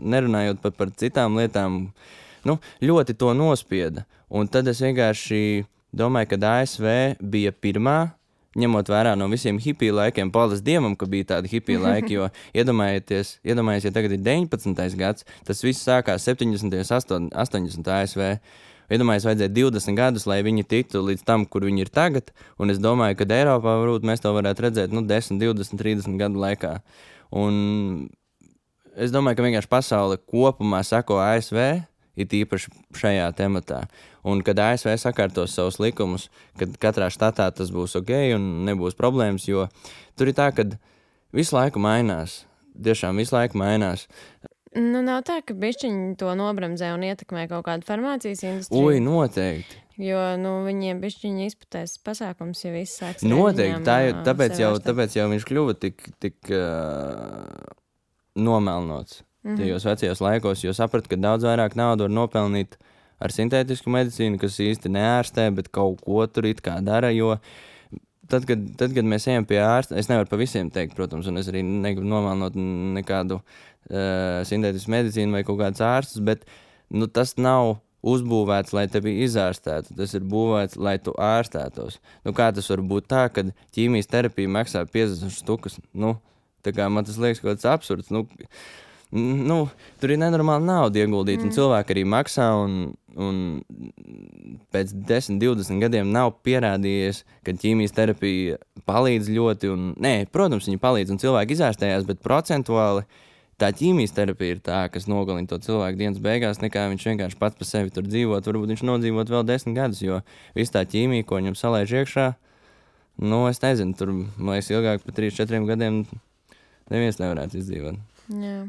Nerunājot pat par citām lietām, ļoti to nospieda. Un tad es vienkārši domāju, ka ASV bija pirmā, ņemot vērā no visiem hipiju laikiem, paldies Dievam, ka bija tādi hipiju laiki, jo iedomājieties, ja tagad ir 19. gads, tas viss sākās 70. 80. ASV. Iedomājieties, vajadzēja 20 gadus, lai viņi tiktu līdz tam, kur viņi ir tagad, un es domāju, ka Eiropā varbūt mēs to varētu redzēt 10, 20, 30 gadu laikā. Un es domāju, ka vienkārši pasaule kopumā sako ASV, it īpaši šajā tematā. Un kad ASV sakārtos savus likumus, kad katrā štatā tas būs ok un nebūs problēmas, jo tur ir tā, ka visu laiku mainās. Tiešām visu laiku mainās. Nav tā, ka bišķiņi to nobremzē un ietekmē kaut kādu farmācijas industriju. Noteikti. Jo, viņiem bišķiņi izputēs pasākums, ja viss sāks. Noteikti. Tāpēc jau viņš kļuva tik nomelnots. Tajos vecajos laikos, jo sapratu, ka daudz vairāk naudu var nopelnīt ar sintētisku medicīnu, kas īsti neārstē, bet kaut ko tur it kā dara, jo tad, kad mēs ejam pie ārsta, es nevaru pa visiem teikt, protams, un es arī negribu nomelnot nekādu sintētisku medicīnu vai kaut kādus ārstus, bet tas nav uzbūvēts, lai tevi izārstētu, tas ir būvēts, lai tu ārstētos. Kā tas var būt tā, kad ķīmijas terapija maksā 50 štukas? Tā kā man tas liekas kaut kāds absurds, tur ir nenormāli nauda ieguldīt, un cilvēki arī maksā, un pēc 10, 20 gadiem nav pierādījies, ka ķīmijas terapija palīdz ļoti, protams, viņi palīdz, un cilvēki izārstējās, bet procentuāli tā ķīmijas terapija ir tā, kas nogalina to cilvēku dienas beigās, nekā viņš vienkārši pats pa sevi tur dzīvot, varbūt viņš nodzīvot vēl 10 gadus, jo viss tā ķīmija, ko viņam salaiž iekšā, es nezinu, tur, man liekas, ilgāk pa 3-4 gadiem neviens nevarētu izdzīvot. Jā.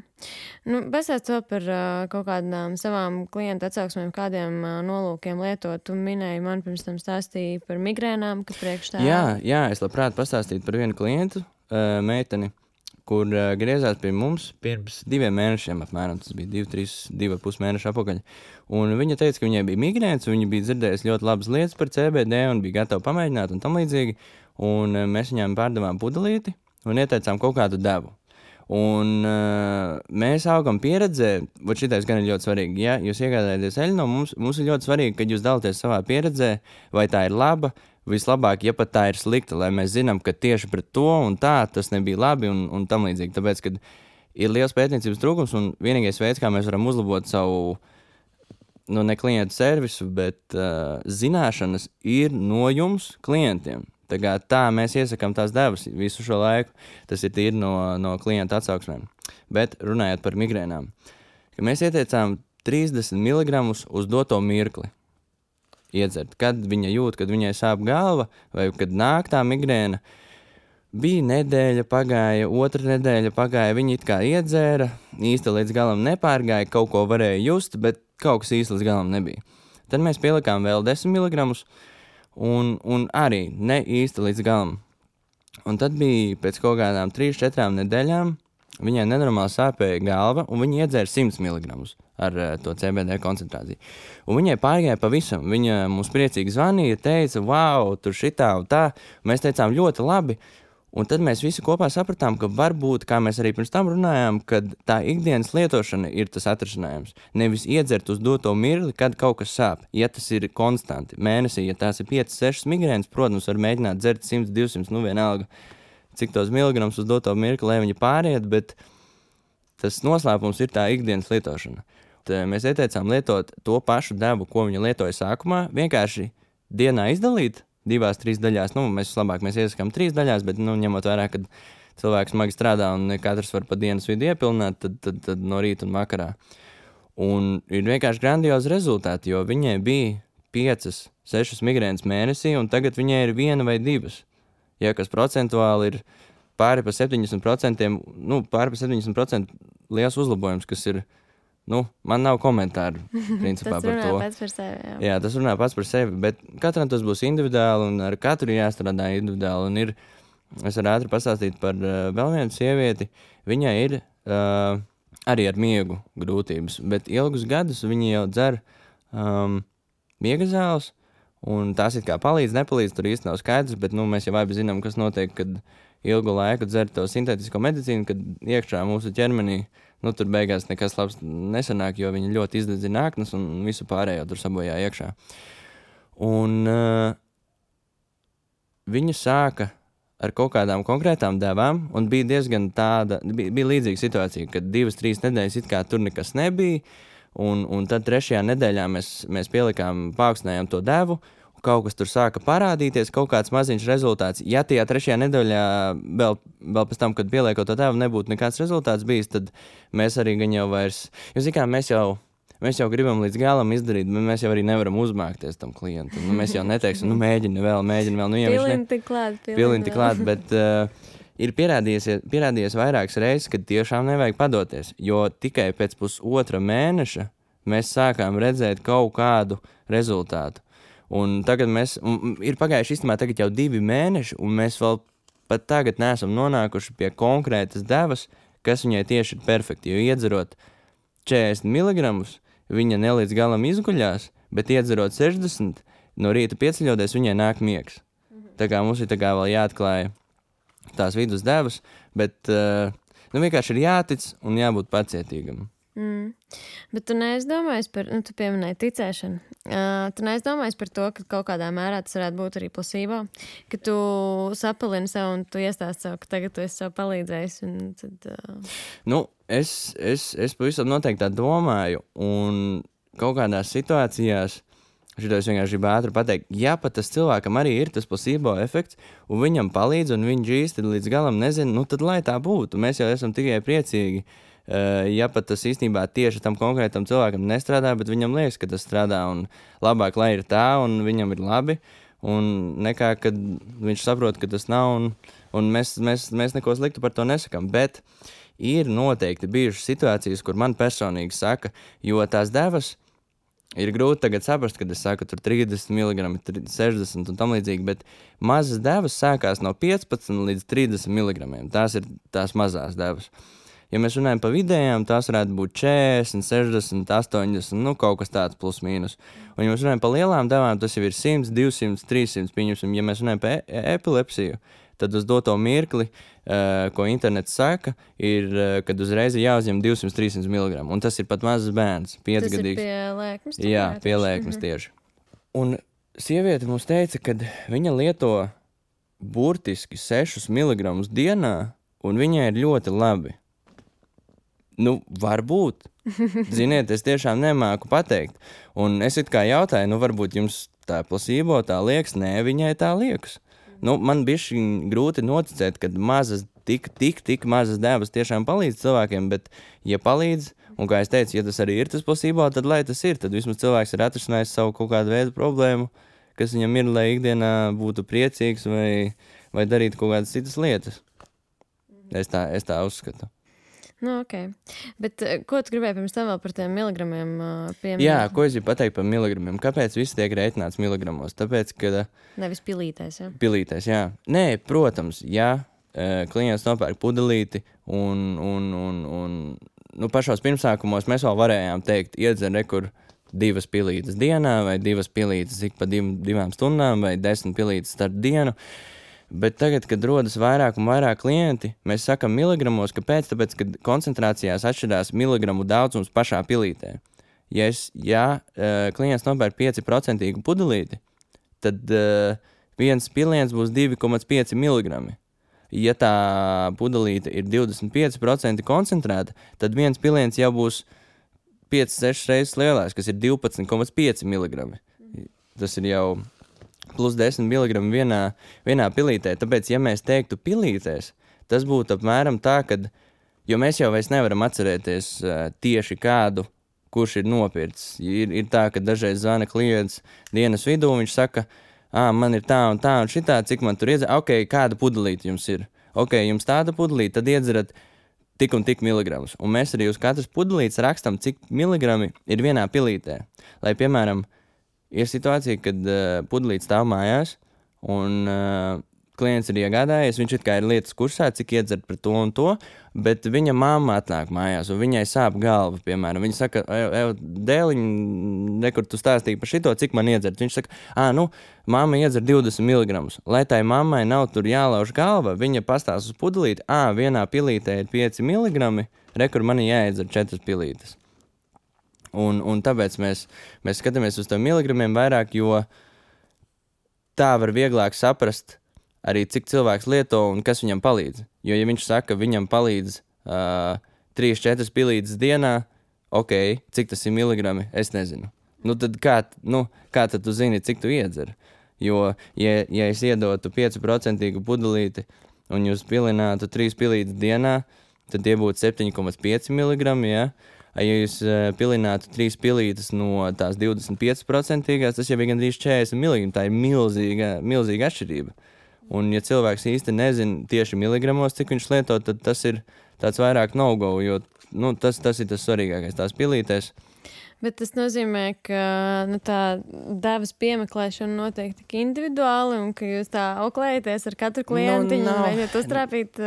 Pastāst to par kaut kādām savām klientu atsauksmēm, kādiem nolūkiem lietot. Tu minēji man pirms tam stāstīji par migrēnām, ka priekš tā... Jā, es labprāt pastāstītu par vienu klientu, meiteni, kur griezās pie mums pirms 2 mēnešiem apmēram, tas bija 2,5 mēneši apakaļ. Un viņa teica, ka viņai bija migrēns, un viņa bija dzirdējusi ļoti labas lietas par CBD un bija gatava pamēģināt un tam līdzīgi. Un mēs viņām pārdevām pudelīti un ieteicām kaut kādu devu. Un mēs augam pieredzē, šitais gan ir ļoti svarīgi, ja jūs iegādājaties eļu no mums ir ļoti svarīgi, kad jūs dalāties savā pieredzē, vai tā ir laba, vislabāk, ja pat tā ir slikta, lai mēs zinām, ka tieši pret to un tā tas nebija labi un tam līdzīgi, tāpēc, kad ir liels pētniecības trūkums un vienīgais veids, kā mēs varam uzlabot savu, ne klientu servisu, bet zināšanas ir no jums klientiem. Tā mēs iesakām tās devas visu šo laiku. Tas ir tīri no klienta atsauksmēm. Bet runājot par migrēnām, ka mēs ieteicām 30 mg uz doto mirkli iedzert. Kad viņa jūt, kad viņai sāp galva vai kad nāk tā migrēna, bija nedēļa pagāja, otra nedēļa pagāja, viņa it kā iedzēra, īsti līdz galam nepārgāja, kaut ko varēja just, bet kaut kas īsti līdz galam nebija. Tad mēs pielikām vēl 10 mg un arī ne īsti līdz galam. Un tad bija pēc kaut kādām 3-4 nedēļām, viņai nenormāli sāpēja galva, un viņa iedzēra 100 mg ar to CBD koncentrāciju. Un viņai pārgāja pavisam. Viņa mums priecīgi zvanīja, teica, wow, tur šitā un tā. Mēs teicām, ļoti labi. Un tad mēs visi kopā sapratām, ka varbūt, kā mēs arī pirms tam runājām, kad tā ikdienas lietošana ir tas atrisinājums. Nevis iedzert uz doto mirkli, kad kaut kas sāp. Ja tas ir konstanti mēnesī, ja tās ir 5-6 migrēnas, protams, var mēģināt dzert 100-200, vienalga, cik tos miligrams uz doto mirkli, lai viņi pāriet, bet tas noslēpums ir tā ikdienas lietošana. Tad mēs ieteicām lietot to pašu devu, ko viņa lietoja sākumā, vienkārši dienā izdalīt 2-3 daļās. Mēs iesakām 3 daļās, bet ņemot vērā, kad cilvēks smagi strādā un katrs var pa dienas vidu iepilnāt, tad no rīta un vakarā. Un ir vienkārši grandiozi rezultāti, jo viņai bija 5-6 migrēnas mēnesī, un tagad viņai ir 1 vai 2. Ja kas procentuāli ir pāri pa 70%, pāri pa 70% liels uzlabojums, kas ir, man nav komentāru principā par to. Tas runā pats par sevi, jā. Jā, tas runā pats par sevi, bet katram tas būs individuāli un ar katru jāstrādā individuāli. Un es varu ātri pastāstīt par vēl vienu sievieti. Viņai ir arī ar miegu grūtības, bet ilgus gadus viņa jau dzer miega zāles, un tās it kā palīdz, nepalīdz, tur īsti nav skaidrs, bet mēs jau abi zinām, kas notiek, kad ilgu laiku dzer to sintētisko medicīnu, kad iekšā mūsu ķermenī, tur beigās nekas labs nesanāk, jo viņi ļoti izdedzina aknas un visu pārējo tur sabojā iekšā. Un viņa sāka ar kaut kādām konkrētām devām, un bija diezgan bija līdzīga situācija, kad 2-3 nedēļas it kā tur nekas nebija, un tad 3. nedēļā mēs pielikām, paaugstinājām to devu, kaut kas tur sāka parādīties, kaut kāds maziņš rezultāts. Ja tajā 3. nedēļā vēl pēc tam, kad pieliekot to devu, nebūtu nekāds rezultāts bijis, tad mēs arī gan jau vairs, mēs jau gribam līdz galam izdarīt, bet mēs jau arī nevaram uzmākties tam klientam. Mēs jau neteiksim, mēģini vēl. Pilinti klāt, bet ir pierādījies vairākas reizes, kad tiešām nevajag padoties, jo tikai pēc pusotra mēneša mēs sākām redzēt kaut kādu rezultātu. Un tagad ir pagājuši īstenībā tagad jau 2 mēneši, un mēs vēl pat tagad neesam nonākuši pie konkrētas devas, kas viņai tieši ir perfekti, jo iedzerot 40 mg, viņa ne līdz galam izguļās, bet iedzerot 60, no rīta pieceļoties, viņai nāk miegs. Tā kā mums ir vēl jāatklāja tās vidus devas, bet vienkārši ir jātic un jābūt pacietīgam. Bet tu neaizdomājies par, tu pieminēji ticēšanu, tu neaizdomājies par to, ka kaut kādā mērā tas varētu būt arī placebo, ka tu sapalini sev un tu iestāsti sev, ka tagad tu esi sev palīdzējis un tad... Es pavisam noteikti tā domāju, un kaut kādās situācijās, šito es vienkārši gribu ātri pateikt, ja pat tas cilvēkam arī ir tas placebo efekts, un viņam palīdz, un viņš īsti līdz galam nezina, tad lai tā būtu, mēs jau esam tikai priecīgi. Ja pat tas īstenībā tieši tam konkrētam cilvēkam nestrādā, bet viņam liekas, ka tas strādā un labāk, lai ir tā un viņam ir labi, un nekā, kad viņš saprot, ka tas nav, un mēs neko sliktu par to nesakam, bet ir noteikti bijušas situācijas, kur man personīgi saka, jo tās devas ir grūti tagad saprast, kad es saku tur 30 mg, 60 un tam līdzīgi, bet mazas devas sākās no 15 līdz 30 mg, tās ir tās mazās devas. Ja mēs runājam par vidējām, tās varētu būt 40, 60, 80, kaut kas tāds plus mīnus. Un ja mēs runājam par lielām devām, tas jau ir 100, 200, 300, pieņemsim. Ja mēs runājam par epilepsiju, tad uz doto mirkli, ko internets saka, ir, kad uzreiz ir jāuzņem 200-300 mg. Un tas ir pat mazs bērns, 5-gadīgs. Tas ir pie lēkmes? Jā, pie lēkmes tieši. Un sieviete mums teica, ka viņa lieto burtiski 6 mg dienā, un viņai ir ļoti labi. Varbūt. Ziniet, es tiešām nemāku pateikt. Un es it kā jautāju, varbūt jums tā placebo tā liekas? Nē, viņai tā liekas. Man bišķi grūti noticēt, kad mazas tik mazas devas tiešām palīdz cilvēkiem, bet, ja palīdz, un kā es teicu, ja tas arī ir tas placebo, tad lai tas ir, tad vismaz cilvēks ir atrisinājis savu kaut kādu veidu problēmu, kas viņam ir, lai ikdienā būtu priecīgs vai darītu kaut kādas citas lietas. Es tā uzskatu. Nu, ok. Bet ko tu gribēji pirms tam vēl par tiem miligramiem pieminēt? Jā, ko es gribu pateikt par miligramiem? Kāpēc viss tiek rēķināts miligramos? Tāpēc, ka... Nevis pilītēs, jā? Pilītēs, jā. Nē, protams, ja klients nopērk pudelīti un pašos pirmsākumos mēs vēl varējām teikt, iedzer rekur 2 pilītes dienā vai 2 pilītes ik pa 2 stundām vai 10 pilītes starp dienu. Bet tagad, kad rodas vairāk un vairāk klienti, mēs sakam miligramos, kāpēc? Tāpēc, kad koncentrācijās atšķirās miligramu daudzums pašā pilītē. Ja klients nopērk 5% pudelīti, tad viens piliens būs 2,5 miligrami. Ja tā pudelīte ir 25% koncentrēta, tad viens piliens jau būs 5-6 reizes lielāks, kas ir 12,5 miligrami. Tas ir jau... plus 10 mg vienā pilītē. Tāpēc, ja mēs teiktu pilītēs, tas būtu apmēram tā, kad, jo mēs jau vairs nevaram atcerēties tieši kādu, kurš ir nopircis. Ir tā, ka dažreiz zvana klients dienas vidū, viņš saka, man ir tā un šitā, cik man tur iedzer, ok, kāda pudelīte jums ir? Ok, jums tāda pudelīte, tad iedzerat tik un tik miligramus. Un mēs arī uz katras pudelītes rakstam, cik miligrami ir vienā pilītē. Lai, piemēram, ir situācija, kad pudelīte stāv mājās un klients ir iegādājies, viņš it kā ir lietas kursā, cik iedzert par to un to, bet viņa mamma atnāk mājās un viņai sāp galva, piemēram. Viņa saka, dēliņ, nekur tu stāstīji par šito, cik man iedzert. Viņš saka, mamma iedzer 20 mg. Lai tai mammai nav tur jālauž galva, viņa pastāsta uz pudelīti, vienā pilītē ir 5 mg, rekur man jāiedzer 4 pilītes. Un tāpēc mēs skatāmies uz tiem miligramiem vairāk, jo tā var vieglāk saprast arī, cik cilvēks lieto un kas viņam palīdz. Jo, ja viņš saka, viņam palīdz 3-4 pilītes dienā, ok, cik tas ir miligrami, es nezinu. Nu, tad kā tad tu zini, cik tu iedzer? Jo, ja es iedotu 5% pudelīti un jūs pilinātu 3 pilītes dienā, tad tie būtu 7,5 miligrami, ja? Ja jūs pilinātu 3 pilītes no tās 25%, tas jau ir gandrīz 40 miligrami. Tā ir milzīga atšķirība. Un ja cilvēks īsti nezina tieši miligramos, cik viņš lieto, tad tas ir tāds vairāk no-go, jo tas ir tas svarīgākais tās pilītēs. Bet tas nozīmē, ka tā devas piemeklēšana notiek tik individuāli un ka jūs tā auklējaties ar katru klientiņu un mēģināt uztrāpīt,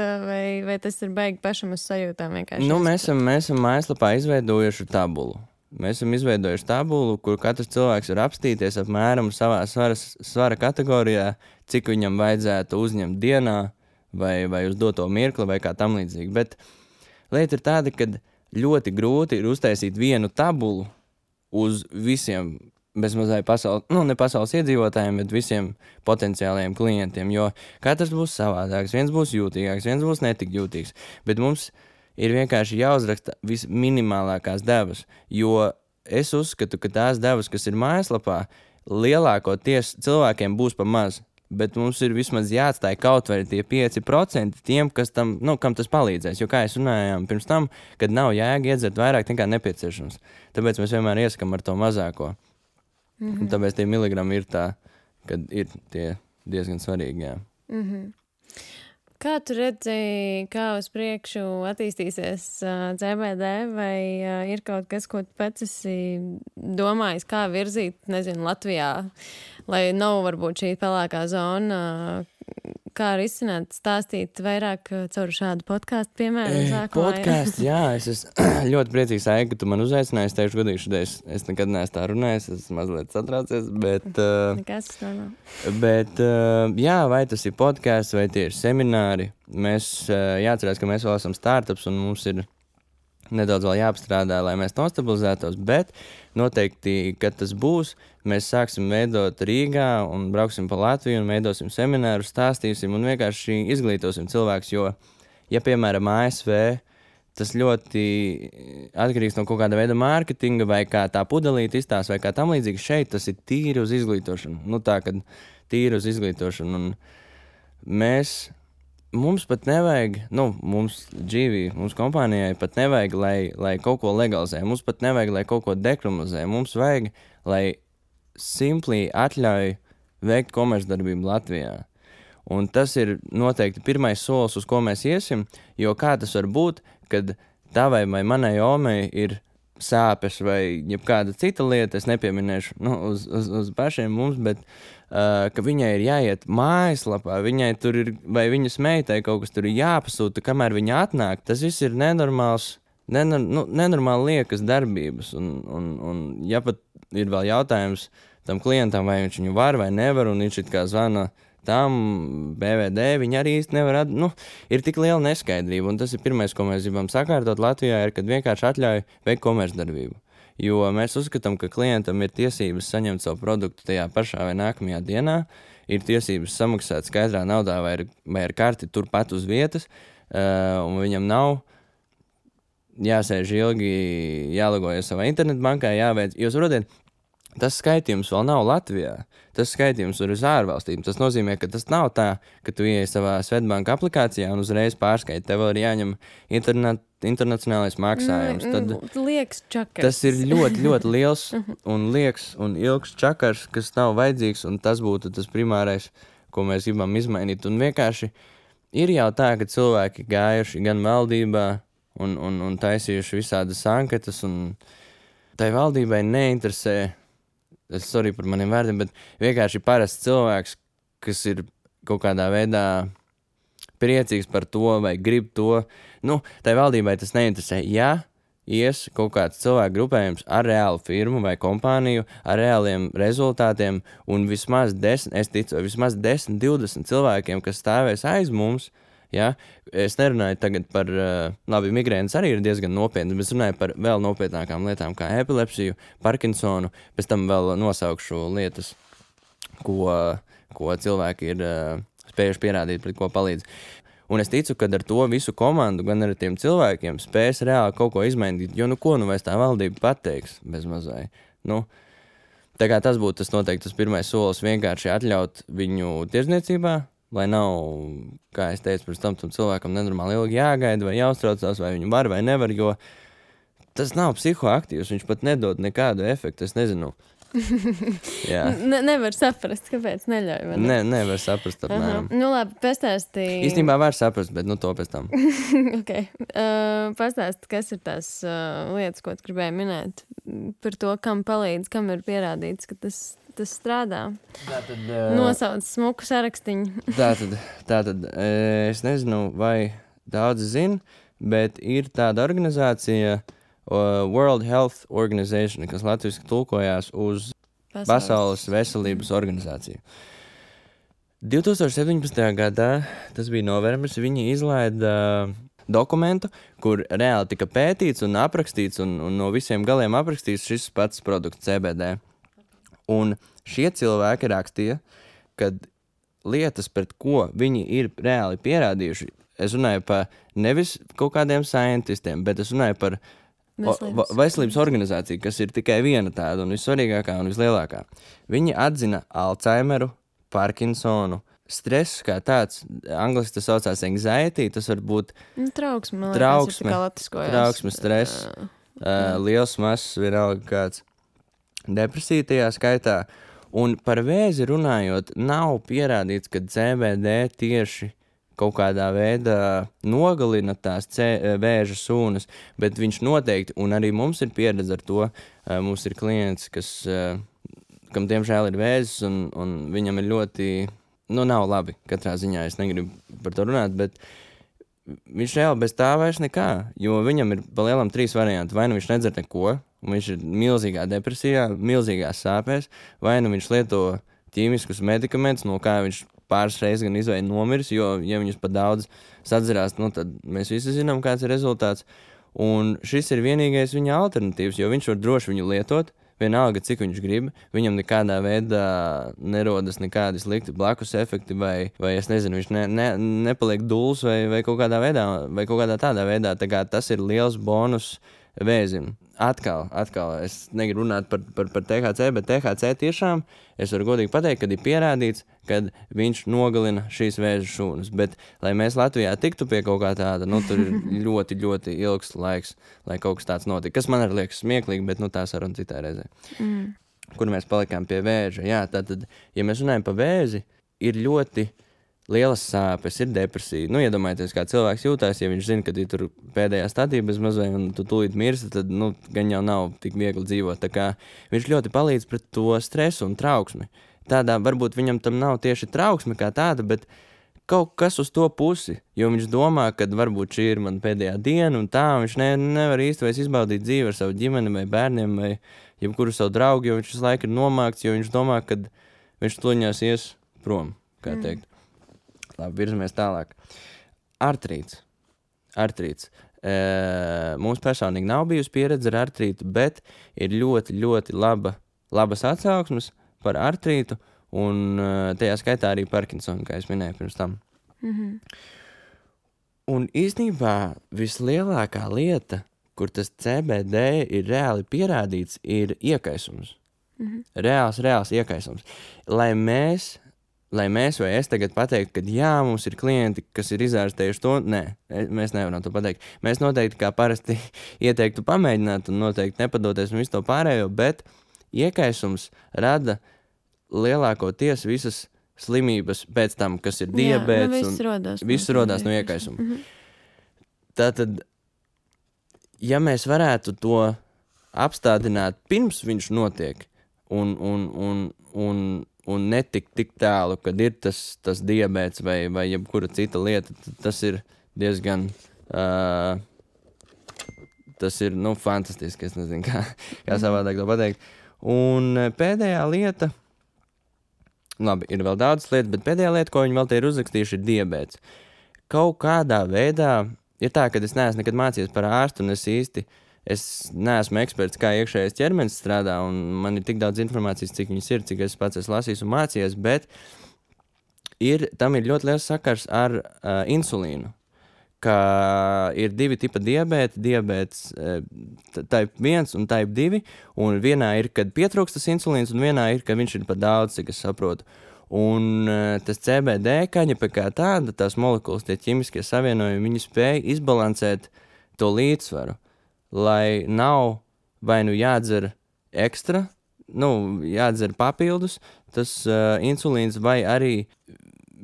vai tas ir baigi pašam uz sajūtām vienkārši? Mēs esam mājaslapā izveidojuši tabulu. Mēs esam izveidojuši tabulu, kur katrs cilvēks var apstīties apmēram savā svara kategorijā, cik viņam vajadzētu uzņemt dienā vai uz doto mirkli vai kā tam līdzīgi. Bet lieta ir tāda, ka ļoti grūti ir uztaisīt vienu tabulu uz visiem bezmazai ne pasaules iedzīvotājiem, bet visiem potenciālajiem klientiem, jo katrs būs savādāks, viens būs jūtīgāks, viens būs netik jūtīgs, bet mums ir vienkārši jāuzraksta visminimālākās devas, jo es uzskatu, ka tās devas, kas ir mājaslapā, lielākoties cilvēkiem būs pa maz, bet mums ir vismaz jāatstāj kaut vai tie 5% tiem, kas tam, kam tas palīdzēs. Jo kā es runājām pirms tam, kad nav jēga iedzert vairāk nekā nepieciešams. Tāpēc mēs vienmēr iesakam ar to mazāko. Un tāpēc tie miligrami ir tā, kad ir tie diezgan svarīgi, jā. Kā tu redzi, kā uz priekšu attīstīsies CBD, vai ir kaut kas, ko tu pats esi domājis, kā virzīt, nezinu, Latvijā, lai nav varbūt šī pelēkā zona, kā risināt, stāstīt vairāk caur šādu podcastu, piemēram, Podcasts, jā, es esmu ļoti priecīgs, Aiga, ka tu man uzaicināji, es teikšu godīgi šodien, es nekad neesmu tā runājis, es mazliet satraucies, bet... Nekas tas nav. Bet, jā, vai tas ir podcasts, vai tie ir semināri, mēs jāatcerās, ka mēs vēl esam startups un mums ir nedaudz vēl jāapstrādā, lai mēs nostabilizētos, bet noteikti, kad tas būs, mēs sāksim veidot Rīgā un brauksim pa Latviju un veidosim semināru, stāstīsim un vienkārši izglītosim cilvēkus, jo, ja, piemēram, ASV, tas ļoti atkarīgs no kaut kāda veida mārketinga vai kā tā pudelīte izstāsta vai kā tam līdzīgi, šeit tas ir tīri uz izglītošanu. Tā, kad tīri uz izglītošanu. Un mēs mums pat nevajag, mums dzīvī, mums kompānijai pat nevajag, lai kaut ko legalizē. Mums pat nevajag, lai kaut ko dekriminalizē. Mums vajag, lai simpli atļauj veikt komercdarbību Latvijā. Un tas ir noteikti pirmais solis, uz ko mēs iesim, jo kā tas var būt, kad tavai vai manai omei ir sāpes vai jebkāda cita lieta, es nepieminēšu uz pašiem mums, bet ka viņai ir jāiet mājaslapā, viņai tur ir, vai viņas meitai kaut kas tur ir jāpasūta, kamēr viņa atnāk, tas viss ir nenormāli liekas darbības. Un ja pat ir vēl jautājums tam klientam, vai viņš viņu var vai nevar, un viņš it kā zvana tam BVD, viņi arī īsti nevar ir tik liela neskaidrība, un tas ir pirmais, ko mēs gribam sakārtot Latvijā, ir, kad vienkārši atļauj veikt komercdarbību. Jo mēs uzskatām, ka klientam ir tiesības saņemt savu produktu tajā pašā vai nākamajā dienā, ir tiesības samaksāt skaidrā naudā vai ar karti turpat uz vietas, un viņam nav jāsēž ilgi, jālogojas savā internetbankā, jāveic, jo saprotiet, tas skaitījums vēl nav Latvijā. Tas skaitījums ir uz ārvalstīm. Tas nozīmē, ka tas nav tā, ka tu ieej savā Svetbanka aplikācijā un uzreiz pārskaiti. Tev vēl ir jāņem internacionālais maksājums. Tad liekas čakars. Tas ir ļoti, ļoti liels un liekas un ilgs čakars, kas nav vajadzīgs, un tas būtu tas primārais, ko mēs gribam izmainīt. Un vienkārši ir jau tā, ka cilvēki gājuši gan valdībā un taisījuši visādas anketas, un tai valdībai neinteresē, sorry par maniem vārdiem, bet vienkārši parasts cilvēks, kas ir kaut kādā veidā priecīgs par to vai grib to. Tai valdībai tas neinteresē. Ja ies kaut kāds cilvēku grupējums ar reālu firmu vai kompāniju, ar reāliem rezultātiem un vismaz 10, 20 cilvēkiem, kas stāvēs aiz mums, ja? Es nerunāju tagad par, migrēnas arī ir diezgan nopietni, bet es runāju par vēl nopietnākām lietām kā epilepsiju, Parkinsonu, pēc tam vēl nosaukšu lietas, ko cilvēki ir spējuši pierādīt, pret ko palīdz. Un es ticu, ka ar to visu komandu, gan ar tiem cilvēkiem spēs reāli kaut ko izmainīt, jo ko vairs tā valdība pateiks bez mazai. Tā kā tas būtu tas pirmais solis, vienkārši atļaut viņu tirdzniecībā, lai nav, kā es teicu, pirms tam cilvēkam nenormāli ilgi jāgaida vai jāuztraucās, vai viņu var vai nevar, jo tas nav psihoaktīvs, viņš pat nedod nekādu efektu, es nezinu. Nevar saprast, kāpēc neļauj. Nevar saprast apmēram. Labi, pastāstīji. Īstenībā var saprast, bet to pēc tam. Okay. Pastāsti, kas ir tās lietas, ko tu gribēji minēt par to, kam palīdz, kam ir pierādīts, ka tas strādā. Nosauc smuku sarakstiņu. Tātad, es nezinu, vai daudzi zina, bet ir tāda organizācija World Health Organization, kas latviski tulkojās uz Pasaules veselības organizāciju. 2017. gadā, tas bija novembris, viņi izlaida dokumentu, kur reāli tika pētīts un aprakstīts un no visiem galiem aprakstīts šis pats produkts CBD. Un šie cilvēki rakstīja, ka lietas, pret ko viņi ir reāli pierādījuši, es runāju par nevis kaut kādiem scientistiem, bet es runāju par veselības organizāciju, kas ir tikai viena tāda un vissvarīgākā un vislielākā. Viņi atzina Alzheimeru, Parkinsonu, stresu kā tāds, angliski tas saucās anxiety, tas var būt trauksme, stress, liels mazs, vienalga kāds. Depresija tajā skaitā, un par vēzi runājot, nav pierādīts, ka CBD tieši kaut kādā veidā nogalina tās vēža sūnas, bet viņš noteikti, un arī mums ir pieredze ar to, mums ir klients, kam diemžēl ir vēzis, un viņam ir ļoti, nav labi, katrā ziņā es negribu par to runāt, bet viņš reāli bez tā vairs nekā, jo viņam ir pa lielam 3 varianti, vai nu viņš nedzer neko, un viņš ir milzīgā depresijā, milzīgās sāpēs, vai nu viņš lieto ķīmiskus medikamentus, no kā viņš pāris reizes gan izvēja nomiris, jo, ja viņus pat daudz sadzerās, tad mēs visi zinām, kāds ir rezultāts. Un šis ir vienīgais viņa alternatīvs, jo viņš var droši viņu lietot, vienalga, cik viņš grib, viņam nekādā veidā nerodas nekādi slikti blakus efekti, vai es nezinu, viņš nepaliek duls vai kaut kādā veidā, vai kaut kādā tādā veidā, tā kā tas ir liels bonus vēzim. Atkal, es negribu runāt par THC, bet THC tiešām, es varu godīgi pateikt, kad ir pierādīts, kad viņš nogalina šīs vēža šūnas. Bet, lai mēs Latvijā tiktu pie kaut kā tāda, tur ir ļoti, ļoti ilgs laiks, lai kaut kas tāds notika. Kas man arī liekas smieklīgi, bet tā saruna citā reizē. Kur mēs palikām pie vēža. Jā, tātad, ja mēs runājam par vēzi, ir ļoti lielas sāpes, ir depresija. Iedomājieties, kā cilvēks jūtās, ja viņš zina, ka ir tur pēdējā stadija bez mazai un tu tūlīt mirsti, tad, gan jau nav tik viegli dzīvot. Tā kā viņš ļoti palīdz pret to stresu un trauksmi. Tādā varbūt viņam tam nav tieši trauksme kā tāda, bet kaut kas uz to pusi, jo viņš domā, ka varbūt šī ir man pēdējā diena un tā, un viņš nevar īsti vairs izbaudīt dzīvi ar savu ģimeni vai bērniem vai jebkuru savu draugu, jo viņš visu laiku ir nomākts, jo viņš domā, ka viņš tuļņās ies prom, kā teikt. Labi, virzamies tālāk. Artrīts. Mums personīgi nav bijusi pieredze ar artrītu, bet ir ļoti, ļoti labas atsauksmes par artrītu un tajā skaitā arī Parkinsonu, kā es minēju pirms tam. Un īstenībā vislielākā lieta, kur tas CBD ir reāli pierādīts, ir iekaisums. Reāls iekaisums. Lai mēs vai es tagad pateiktu, ka jā, mums ir klienti, kas ir izārstējuši to, nē, mēs nevaram to pateikt. Mēs noteikti kā parasti ieteiktu pamēģināt un noteikti nepadoties un visu to pārējo, bet iekaisums rada lielākoties visas slimības pēc tam, kas ir diabēts. Viss rodās no iekaisuma. Tātad, ja mēs varētu to apstādināt pirms viņš notiek un netikt tik tālu, kad ir tas diabēts vai jebkura cita lieta, tas ir diezgan, tas ir, fantastiski, es nezinu, kā savādāk to pateikt. Un pēdējā lieta, labi, ir vēl daudz lietas, bet pēdējā lieta, ko viņi vēl te ir uzrakstījuši, ir diabēts. Kaut kādā veidā ir tā, ka es neesmu nekad mācījies par ārstu, un es neesmu eksperts, kā iekšējais ķermenis strādā, un man ir tik daudz informācijas, cik viņas ir, cik es pats esmu lasījis un mācījies, bet tam ir ļoti liels sakars ar insulīnu, ka ir divi tipa diabēts type 1 un type 2, un vienā ir, kad pietrūkst tas insulīns, un vienā ir, kad viņš ir par daudz, cik es saprotu. Un tas CBD kaņepe kā tāda, tās molekulas, tie ķimiskie savienojumi, viņi spēja izbalansēt to līdzsvaru. Lai nav vai jādzer ekstra, jādzer papildus, tas insulīns vai arī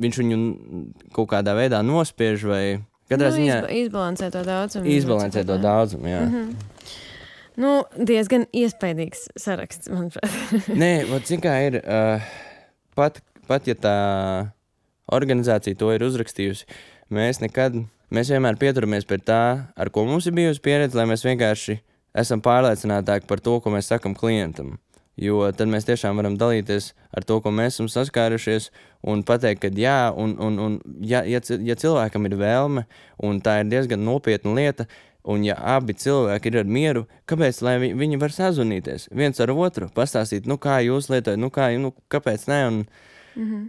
viņš viņu kaut kādā veidā nospiež vai katrā ziņā izbalansē to daudzumu. Izbalansē to daudzumu, jā. Diezgan iespaidīgs saraksts, manuprāt. Nē, zin kā ir, pat ja tā organizācija to ir uzrakstījusi, mēs vienmēr pieturamies pie tā, ar ko mums ir bijusi pieredze, lai mēs vienkārši esam pārliecinātāki par to, ko mēs sakam klientam. Jo tad mēs tiešām varam dalīties ar to, ko mēs esam saskārušies un pateikt, ka jā, un ja cilvēkam ir vēlme, un tā ir diezgan nopietna lieta, un ja abi cilvēki ir ar mieru, kāpēc, lai viņi var sazvanīties viens ar otru, pastāstīt, kā jūs lietojat, kāpēc ne,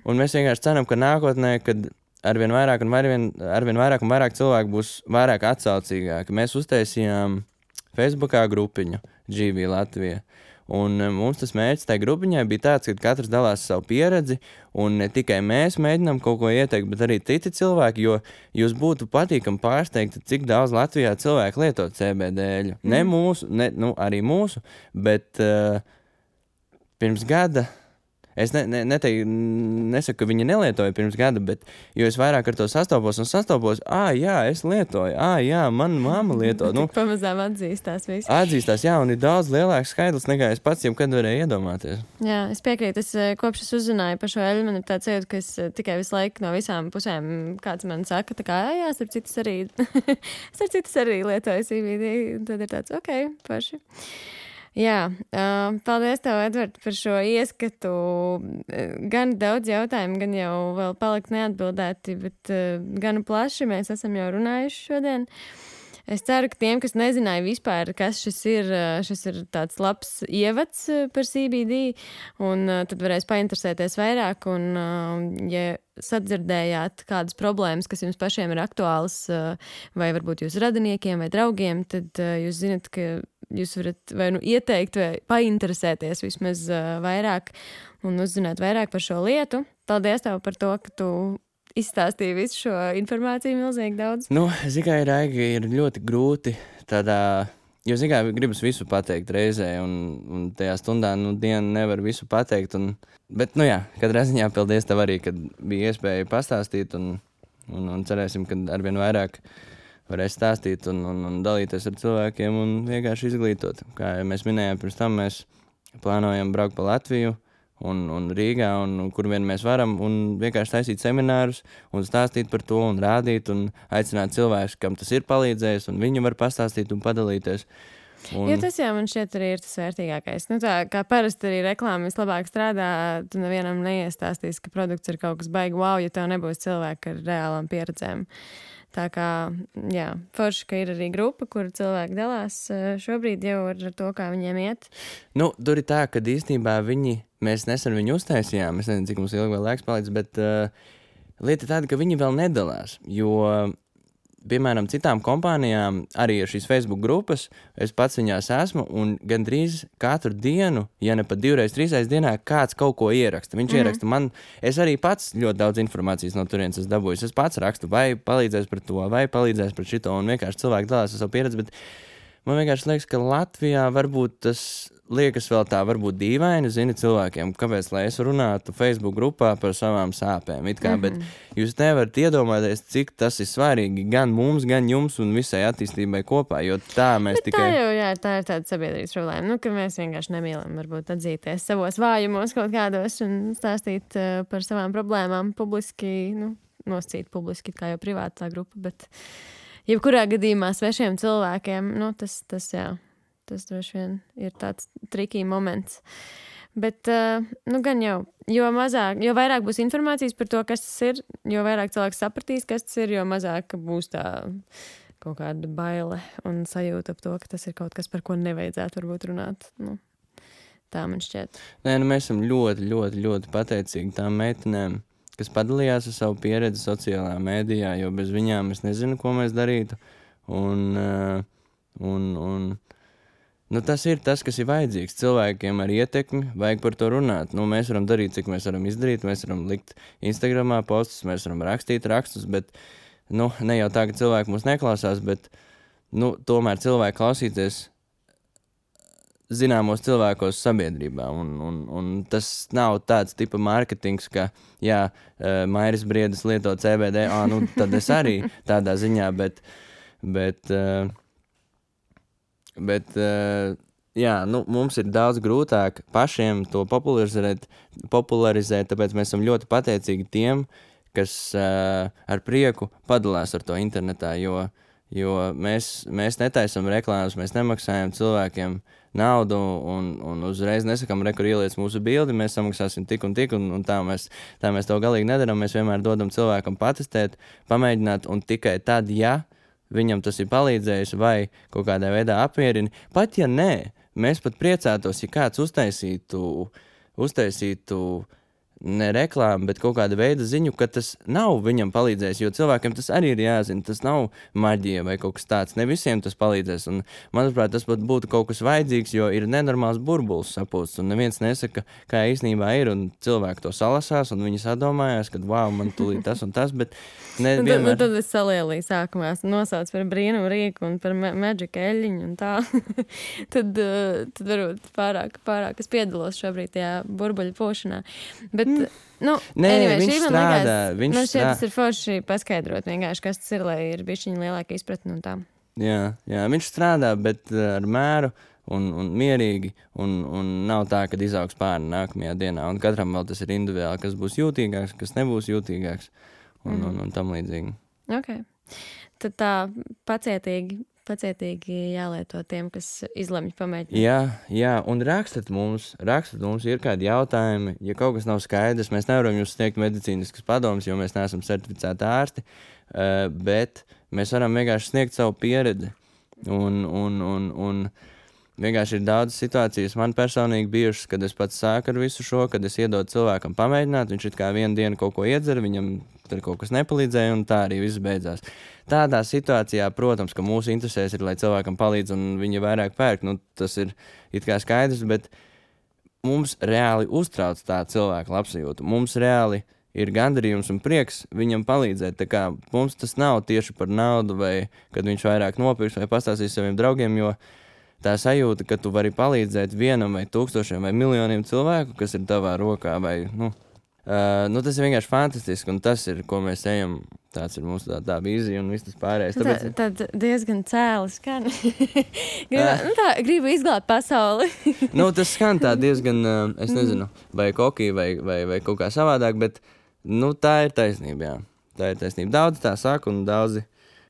un mēs vienkārši ceram, ka nākotnē, kad arvien vairāk un vairāk cilvēku būs vairāk atsaucīgāki. Mēs uztaisījām Facebookā grupiņu GV Latvija. Un mums tas mērķis tajā grupiņai bija tāds, ka katrs dalās savu pieredzi, un ne tikai mēs mēģinām kaut ko ieteikt, bet arī citi cilvēki, jo jūs būtu patīkami pārsteigti, cik daudz Latvijā cilvēku lieto CBD-ļu. Ne mūsu, arī mūsu, bet pirms gada. Es nesaku, ka viņi nelietoja pirms gada, bet jo es vairāk ar to sastopos, jā, es lietoju, jā, mana mamma lieto. Pamazām atzīstās viss. Atzīstās, jā, un ir daudz lielāks skaidrs, nekā es pats jebkad varēju iedomāties. Jā, es piekrītu, kopš es uzzināju par šo eļu, man ir tāds sajūta, ka es tikai visu laiku no visām pusēm kāds man saka, tā kā, jā, starp citas arī lietoju CBD, tad ir tāds, ok, paši. Jā, paldies tev, Edvard, par šo ieskatu. Gan daudz jautājumu, gan jau vēl palikt neatbildēti, bet gan plaši mēs esam jau runājuši šodien. Es ceru, ka tiem, kas nezināja vispār, kas šis ir tāds labs ievads par CBD, un tad varēs painteresēties vairāk, un ja sadzirdējāt kādas problēmas, kas jums pašiem ir aktuālas, vai varbūt jūsu radiniekiem vai draugiem, tad jūs zinat, ka jūs varat vai nu ieteikt, vai painteresēties vismaz vairāk un uzzināt vairāk par šo lietu. Paldies tev par to, ka tu izstāstīja visu šo informāciju milzīgi daudz. Nu, zikai, Raigi, ir ļoti grūti tādā, jo zikai gribas visu pateikt reizē, un tajā stundā, dienu nevar visu pateikt, bet, katrā ziņā paldies tev arī, kad bija iespēja pastāstīt, un cerēsim, ka arvien vairāk varēs stāstīt un dalīties ar cilvēkiem un vienkārši izglītot. Kā mēs minējām pirms tam, mēs plānojam braukt pa Latviju, un Rīgā, un kur vien mēs varam, un vienkārši taisīt seminārus, un stāstīt par to, un rādīt, un aicināt cilvēkus, kam tas ir palīdzējis, un viņi var pastāstīt un padalīties. Jo tas jau man šķiet arī ir tas vērtīgākais. Tā kā parasti arī reklāma vislabāk strādā, tu nevienam neiestāstīs, ka produkts ir kaut kas baigi wow, ja tev nebūs cilvēki ar reālām pieredzēm. Tā kā, forši, ka ir arī grupa, kur cilvēki dalās šobrīd jau ar to, kā viņiem iet. Tur ir tā, ka īstenībā mēs nesen viņu uztaisījām, es nezinu, cik mums ilgi vēl laiks palicis, bet lieta tāda, ka viņi vēl nedalās, jo, piemēram, citām kompānijām arī ir šīs Facebook grupas, es pats viņās esmu, un gandrīz katru dienu, ja ne pat 2-3 dienā, kāds kaut ko ieraksta. Viņš ieraksta man, es arī pats ļoti daudz informācijas no turienes esmu dabūjis. Es pats rakstu, vai palīdzēs par to, vai palīdzēs par šito, un vienkārši cilvēki dalās ar savu pieredzi, bet man vienkārši liekas, ka Latvijā varbūt tas liekas vēl tā, varbūt dīvaini, cilvēkiem, kāpēc, lai es runātu Facebook grupā par savām sāpēm, bet jūs nevarat iedomāties, cik tas ir svarīgi gan mums, gan jums un visai attīstībai kopā, jo tā mēs bet tikai... Tā ir tāda sabiedrības problēma, ka mēs vienkārši nemīlam varbūt atzīties savos vājumos kaut kādos un stāstīt par savām problēmām publiski, noscīt publiski, kā jau privātā grupa, bet jebkurā gadījumā svešiem cilvēkiem, tas droši vien ir tāds trikī moments. Bet, gan jau, jo vairāk būs informācijas par to, kas tas ir, jo vairāk cilvēks sapratīs, kas tas ir, jo mazāk būs tā kaut kāda baile un sajūta ap to, ka tas ir kaut kas, par ko nevajadzētu varbūt runāt. Tā man šķiet. Nē, mēs esam ļoti, ļoti, ļoti pateicīgi tām meitenēm, kas padalījās ar savu pieredzi sociālajā mēdījā, jo bez viņām es nezinu, ko mēs darītu. Tas ir tas, kas ir vajadzīgs. Cilvēkiem ar ietekmi vajag par to runāt. Mēs varam darīt, cik mēs varam izdarīt. Mēs varam likt Instagramā postus, mēs varam rakstīt rakstus, bet ne jau tā, ka cilvēki mūs neklausās, bet tomēr cilvēki klausīties zināmos cilvēkos sabiedrībā. Un tas nav tāds tipa mārketings, ka, Mairis Briedis lieto CBD, tad es arī tādā ziņā, bet mums ir daudz grūtāk pašiem to popularizēt, tāpēc mēs esam ļoti pateicīgi tiem, kas ar prieku padalās ar to internetā, jo mēs netaisam reklāmas, mēs nemaksājam cilvēkiem naudu un uzreiz nesakam, kur ieliec mūsu bildi, mēs samaksāsim tik un tik, un tā mēs to galīgi nedaram, mēs vienmēr dodam cilvēkam patestēt, pamēģināt, un tikai tad, viņam tas ir palīdzējis vai kaut kādā veidā apmierina. Pat ja nē, mēs pat priecātos, ja kāds uztaisītu ne reklāmu, bet kaut kāda veida ziņu, ka tas nav viņam palīdzējis, jo cilvēkiem tas arī ir jāzina, tas nav maģija vai kaut kas tāds, ne visiem tas palīdzēs, un manuprāt, tas pat būtu kaut kas vajadzīgs, jo ir nenormāls burbulis sapūsts, un neviens nesaka, kā īstenībā ir, un cilvēki to salasās, un viņi sadomājās, ka, man tūlīt tas un tas, bet nevienmēr... Tad es salielīju sākumā, nosauc par brīnumu rīku un par maģika eļļiņu un tā, tad varbūt pārāk es piedalos šobrīd tajā burbuļu pūšanā, bet viņš strādā. Tas ir forši paskaidrot vienkārši, kas tas ir, lai ir bišķiņa lielāka izpratne un tā. Jā, viņš strādā, bet ar mēru un mierīgi, un nav tā, kad izaugs pāri nākamajā dienā, un katram vēl tas ir individuāli, kas būs jūtīgāks, kas nebūs jūtīgāks, un tam līdzīgi. Ok. Tad tā pacietīgi jālieto tiem, kas izlemj pamēģināt. Jā, un rakstat mums, ir kādi jautājumi, ja kaut kas nav skaidrs, mēs nevaram jums sniegt medicīniskas padomas, jo mēs neesam certificēti ārsti, bet mēs varam vienkārši sniegt savu pieredzi. Un vienkārši ir daudz situācijas man personīgi bijušas, kad es pats sāku ar visu šo, kad es iedodu cilvēkam pamēģināt, viņš it kā vienu dienu kaut ko iedzer, viņam tur kaut kas nepalīdzēja, un tā arī viss beidzās. Tādā situācijā, protams, ka mūsu interesēs ir, lai cilvēkam palīdz, un viņi vairāk pērk, nu, tas ir it kā skaidrs, bet mums reāli uztrauc tā cilvēka labsajūta. Mums reāli ir gandarījums un prieks viņam palīdzēt. Tā kā mums tas nav tieši par naudu, vai kad viņš vairāk nopirks, vai pastāstīs saviem draugiem, jo tā sajūta, ka tu vari palīdzēt vienam vai tūkstošiem vai miljoniem cilvēku, kas ir tavā rokā, vai, tas ir vienkārši fantastiski, un tas ir, ko mēs ejam. Tāds ir mūsu tā vīzija un viss tas pārējais. Tad diezgan cēli skan. Gribu izglābt pasauli. Tas skan tā diezgan, es nezinu, vai kokī, vai kaut kā savādāk, bet, tā ir taisnība, jā. Tā ir taisnība. Daudzi tā saka, un daudzi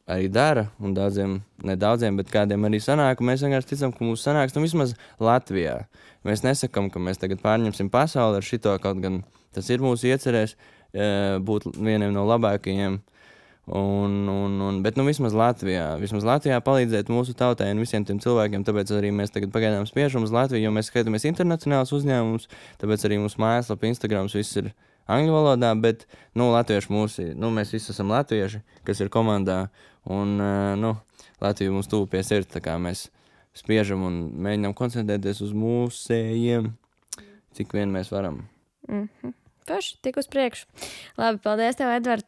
arī dara, un daudziem, ne daudziem, bet kādiem arī sanāk, un mēs vienkārši ticam, ka mums sanāks, vismaz Latvijā. Mēs nesakam, ka mēs tagad pārņemsim pasauli ar šito, kaut gan tas ir mūsu iecerēs būt vieniem no labākajiem. Bet vismaz Latvijā palīdzēt mūsu tautai un visiem tiem cilvēkiem, tāpēc arī mēs tagad pagaidām spiežam uz Latviju, jo mēs skatāmies internacionāls uzņēmums, tāpēc arī mūsu mājaslapa, Instagrams, viss ir angļu valodā, bet, latvieši mēs visi esam latvieši, kas ir komandā, un, Latvija mums tuvu pie sirds, tā kā mēs spiežam un mēģinām koncentrēties uz mūsējiem, cik vien mēs varam. Paši, tik uz priekšu. Labi, paldies tev, Edvard.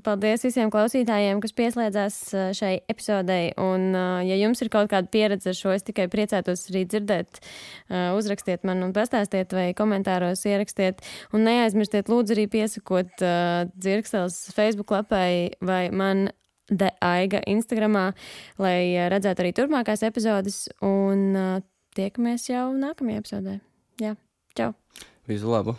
Paldies visiem klausītājiem, kas pieslēdzās šai epizodei. Un, ja jums ir kaut kāda pieredze ar šo, es tikai priecētos arī dzirdēt. Uzrakstiet man un pastāstiet vai komentāros ierakstiet. Un neaizmirstiet lūdzu arī piesakot Dzirkstels Facebook lapai vai man Aiga Instagramā, lai redzētu arī turpmākās epizodes. Un tiekamies jau nākamajā epizodē. Jā, čau! Visu labu!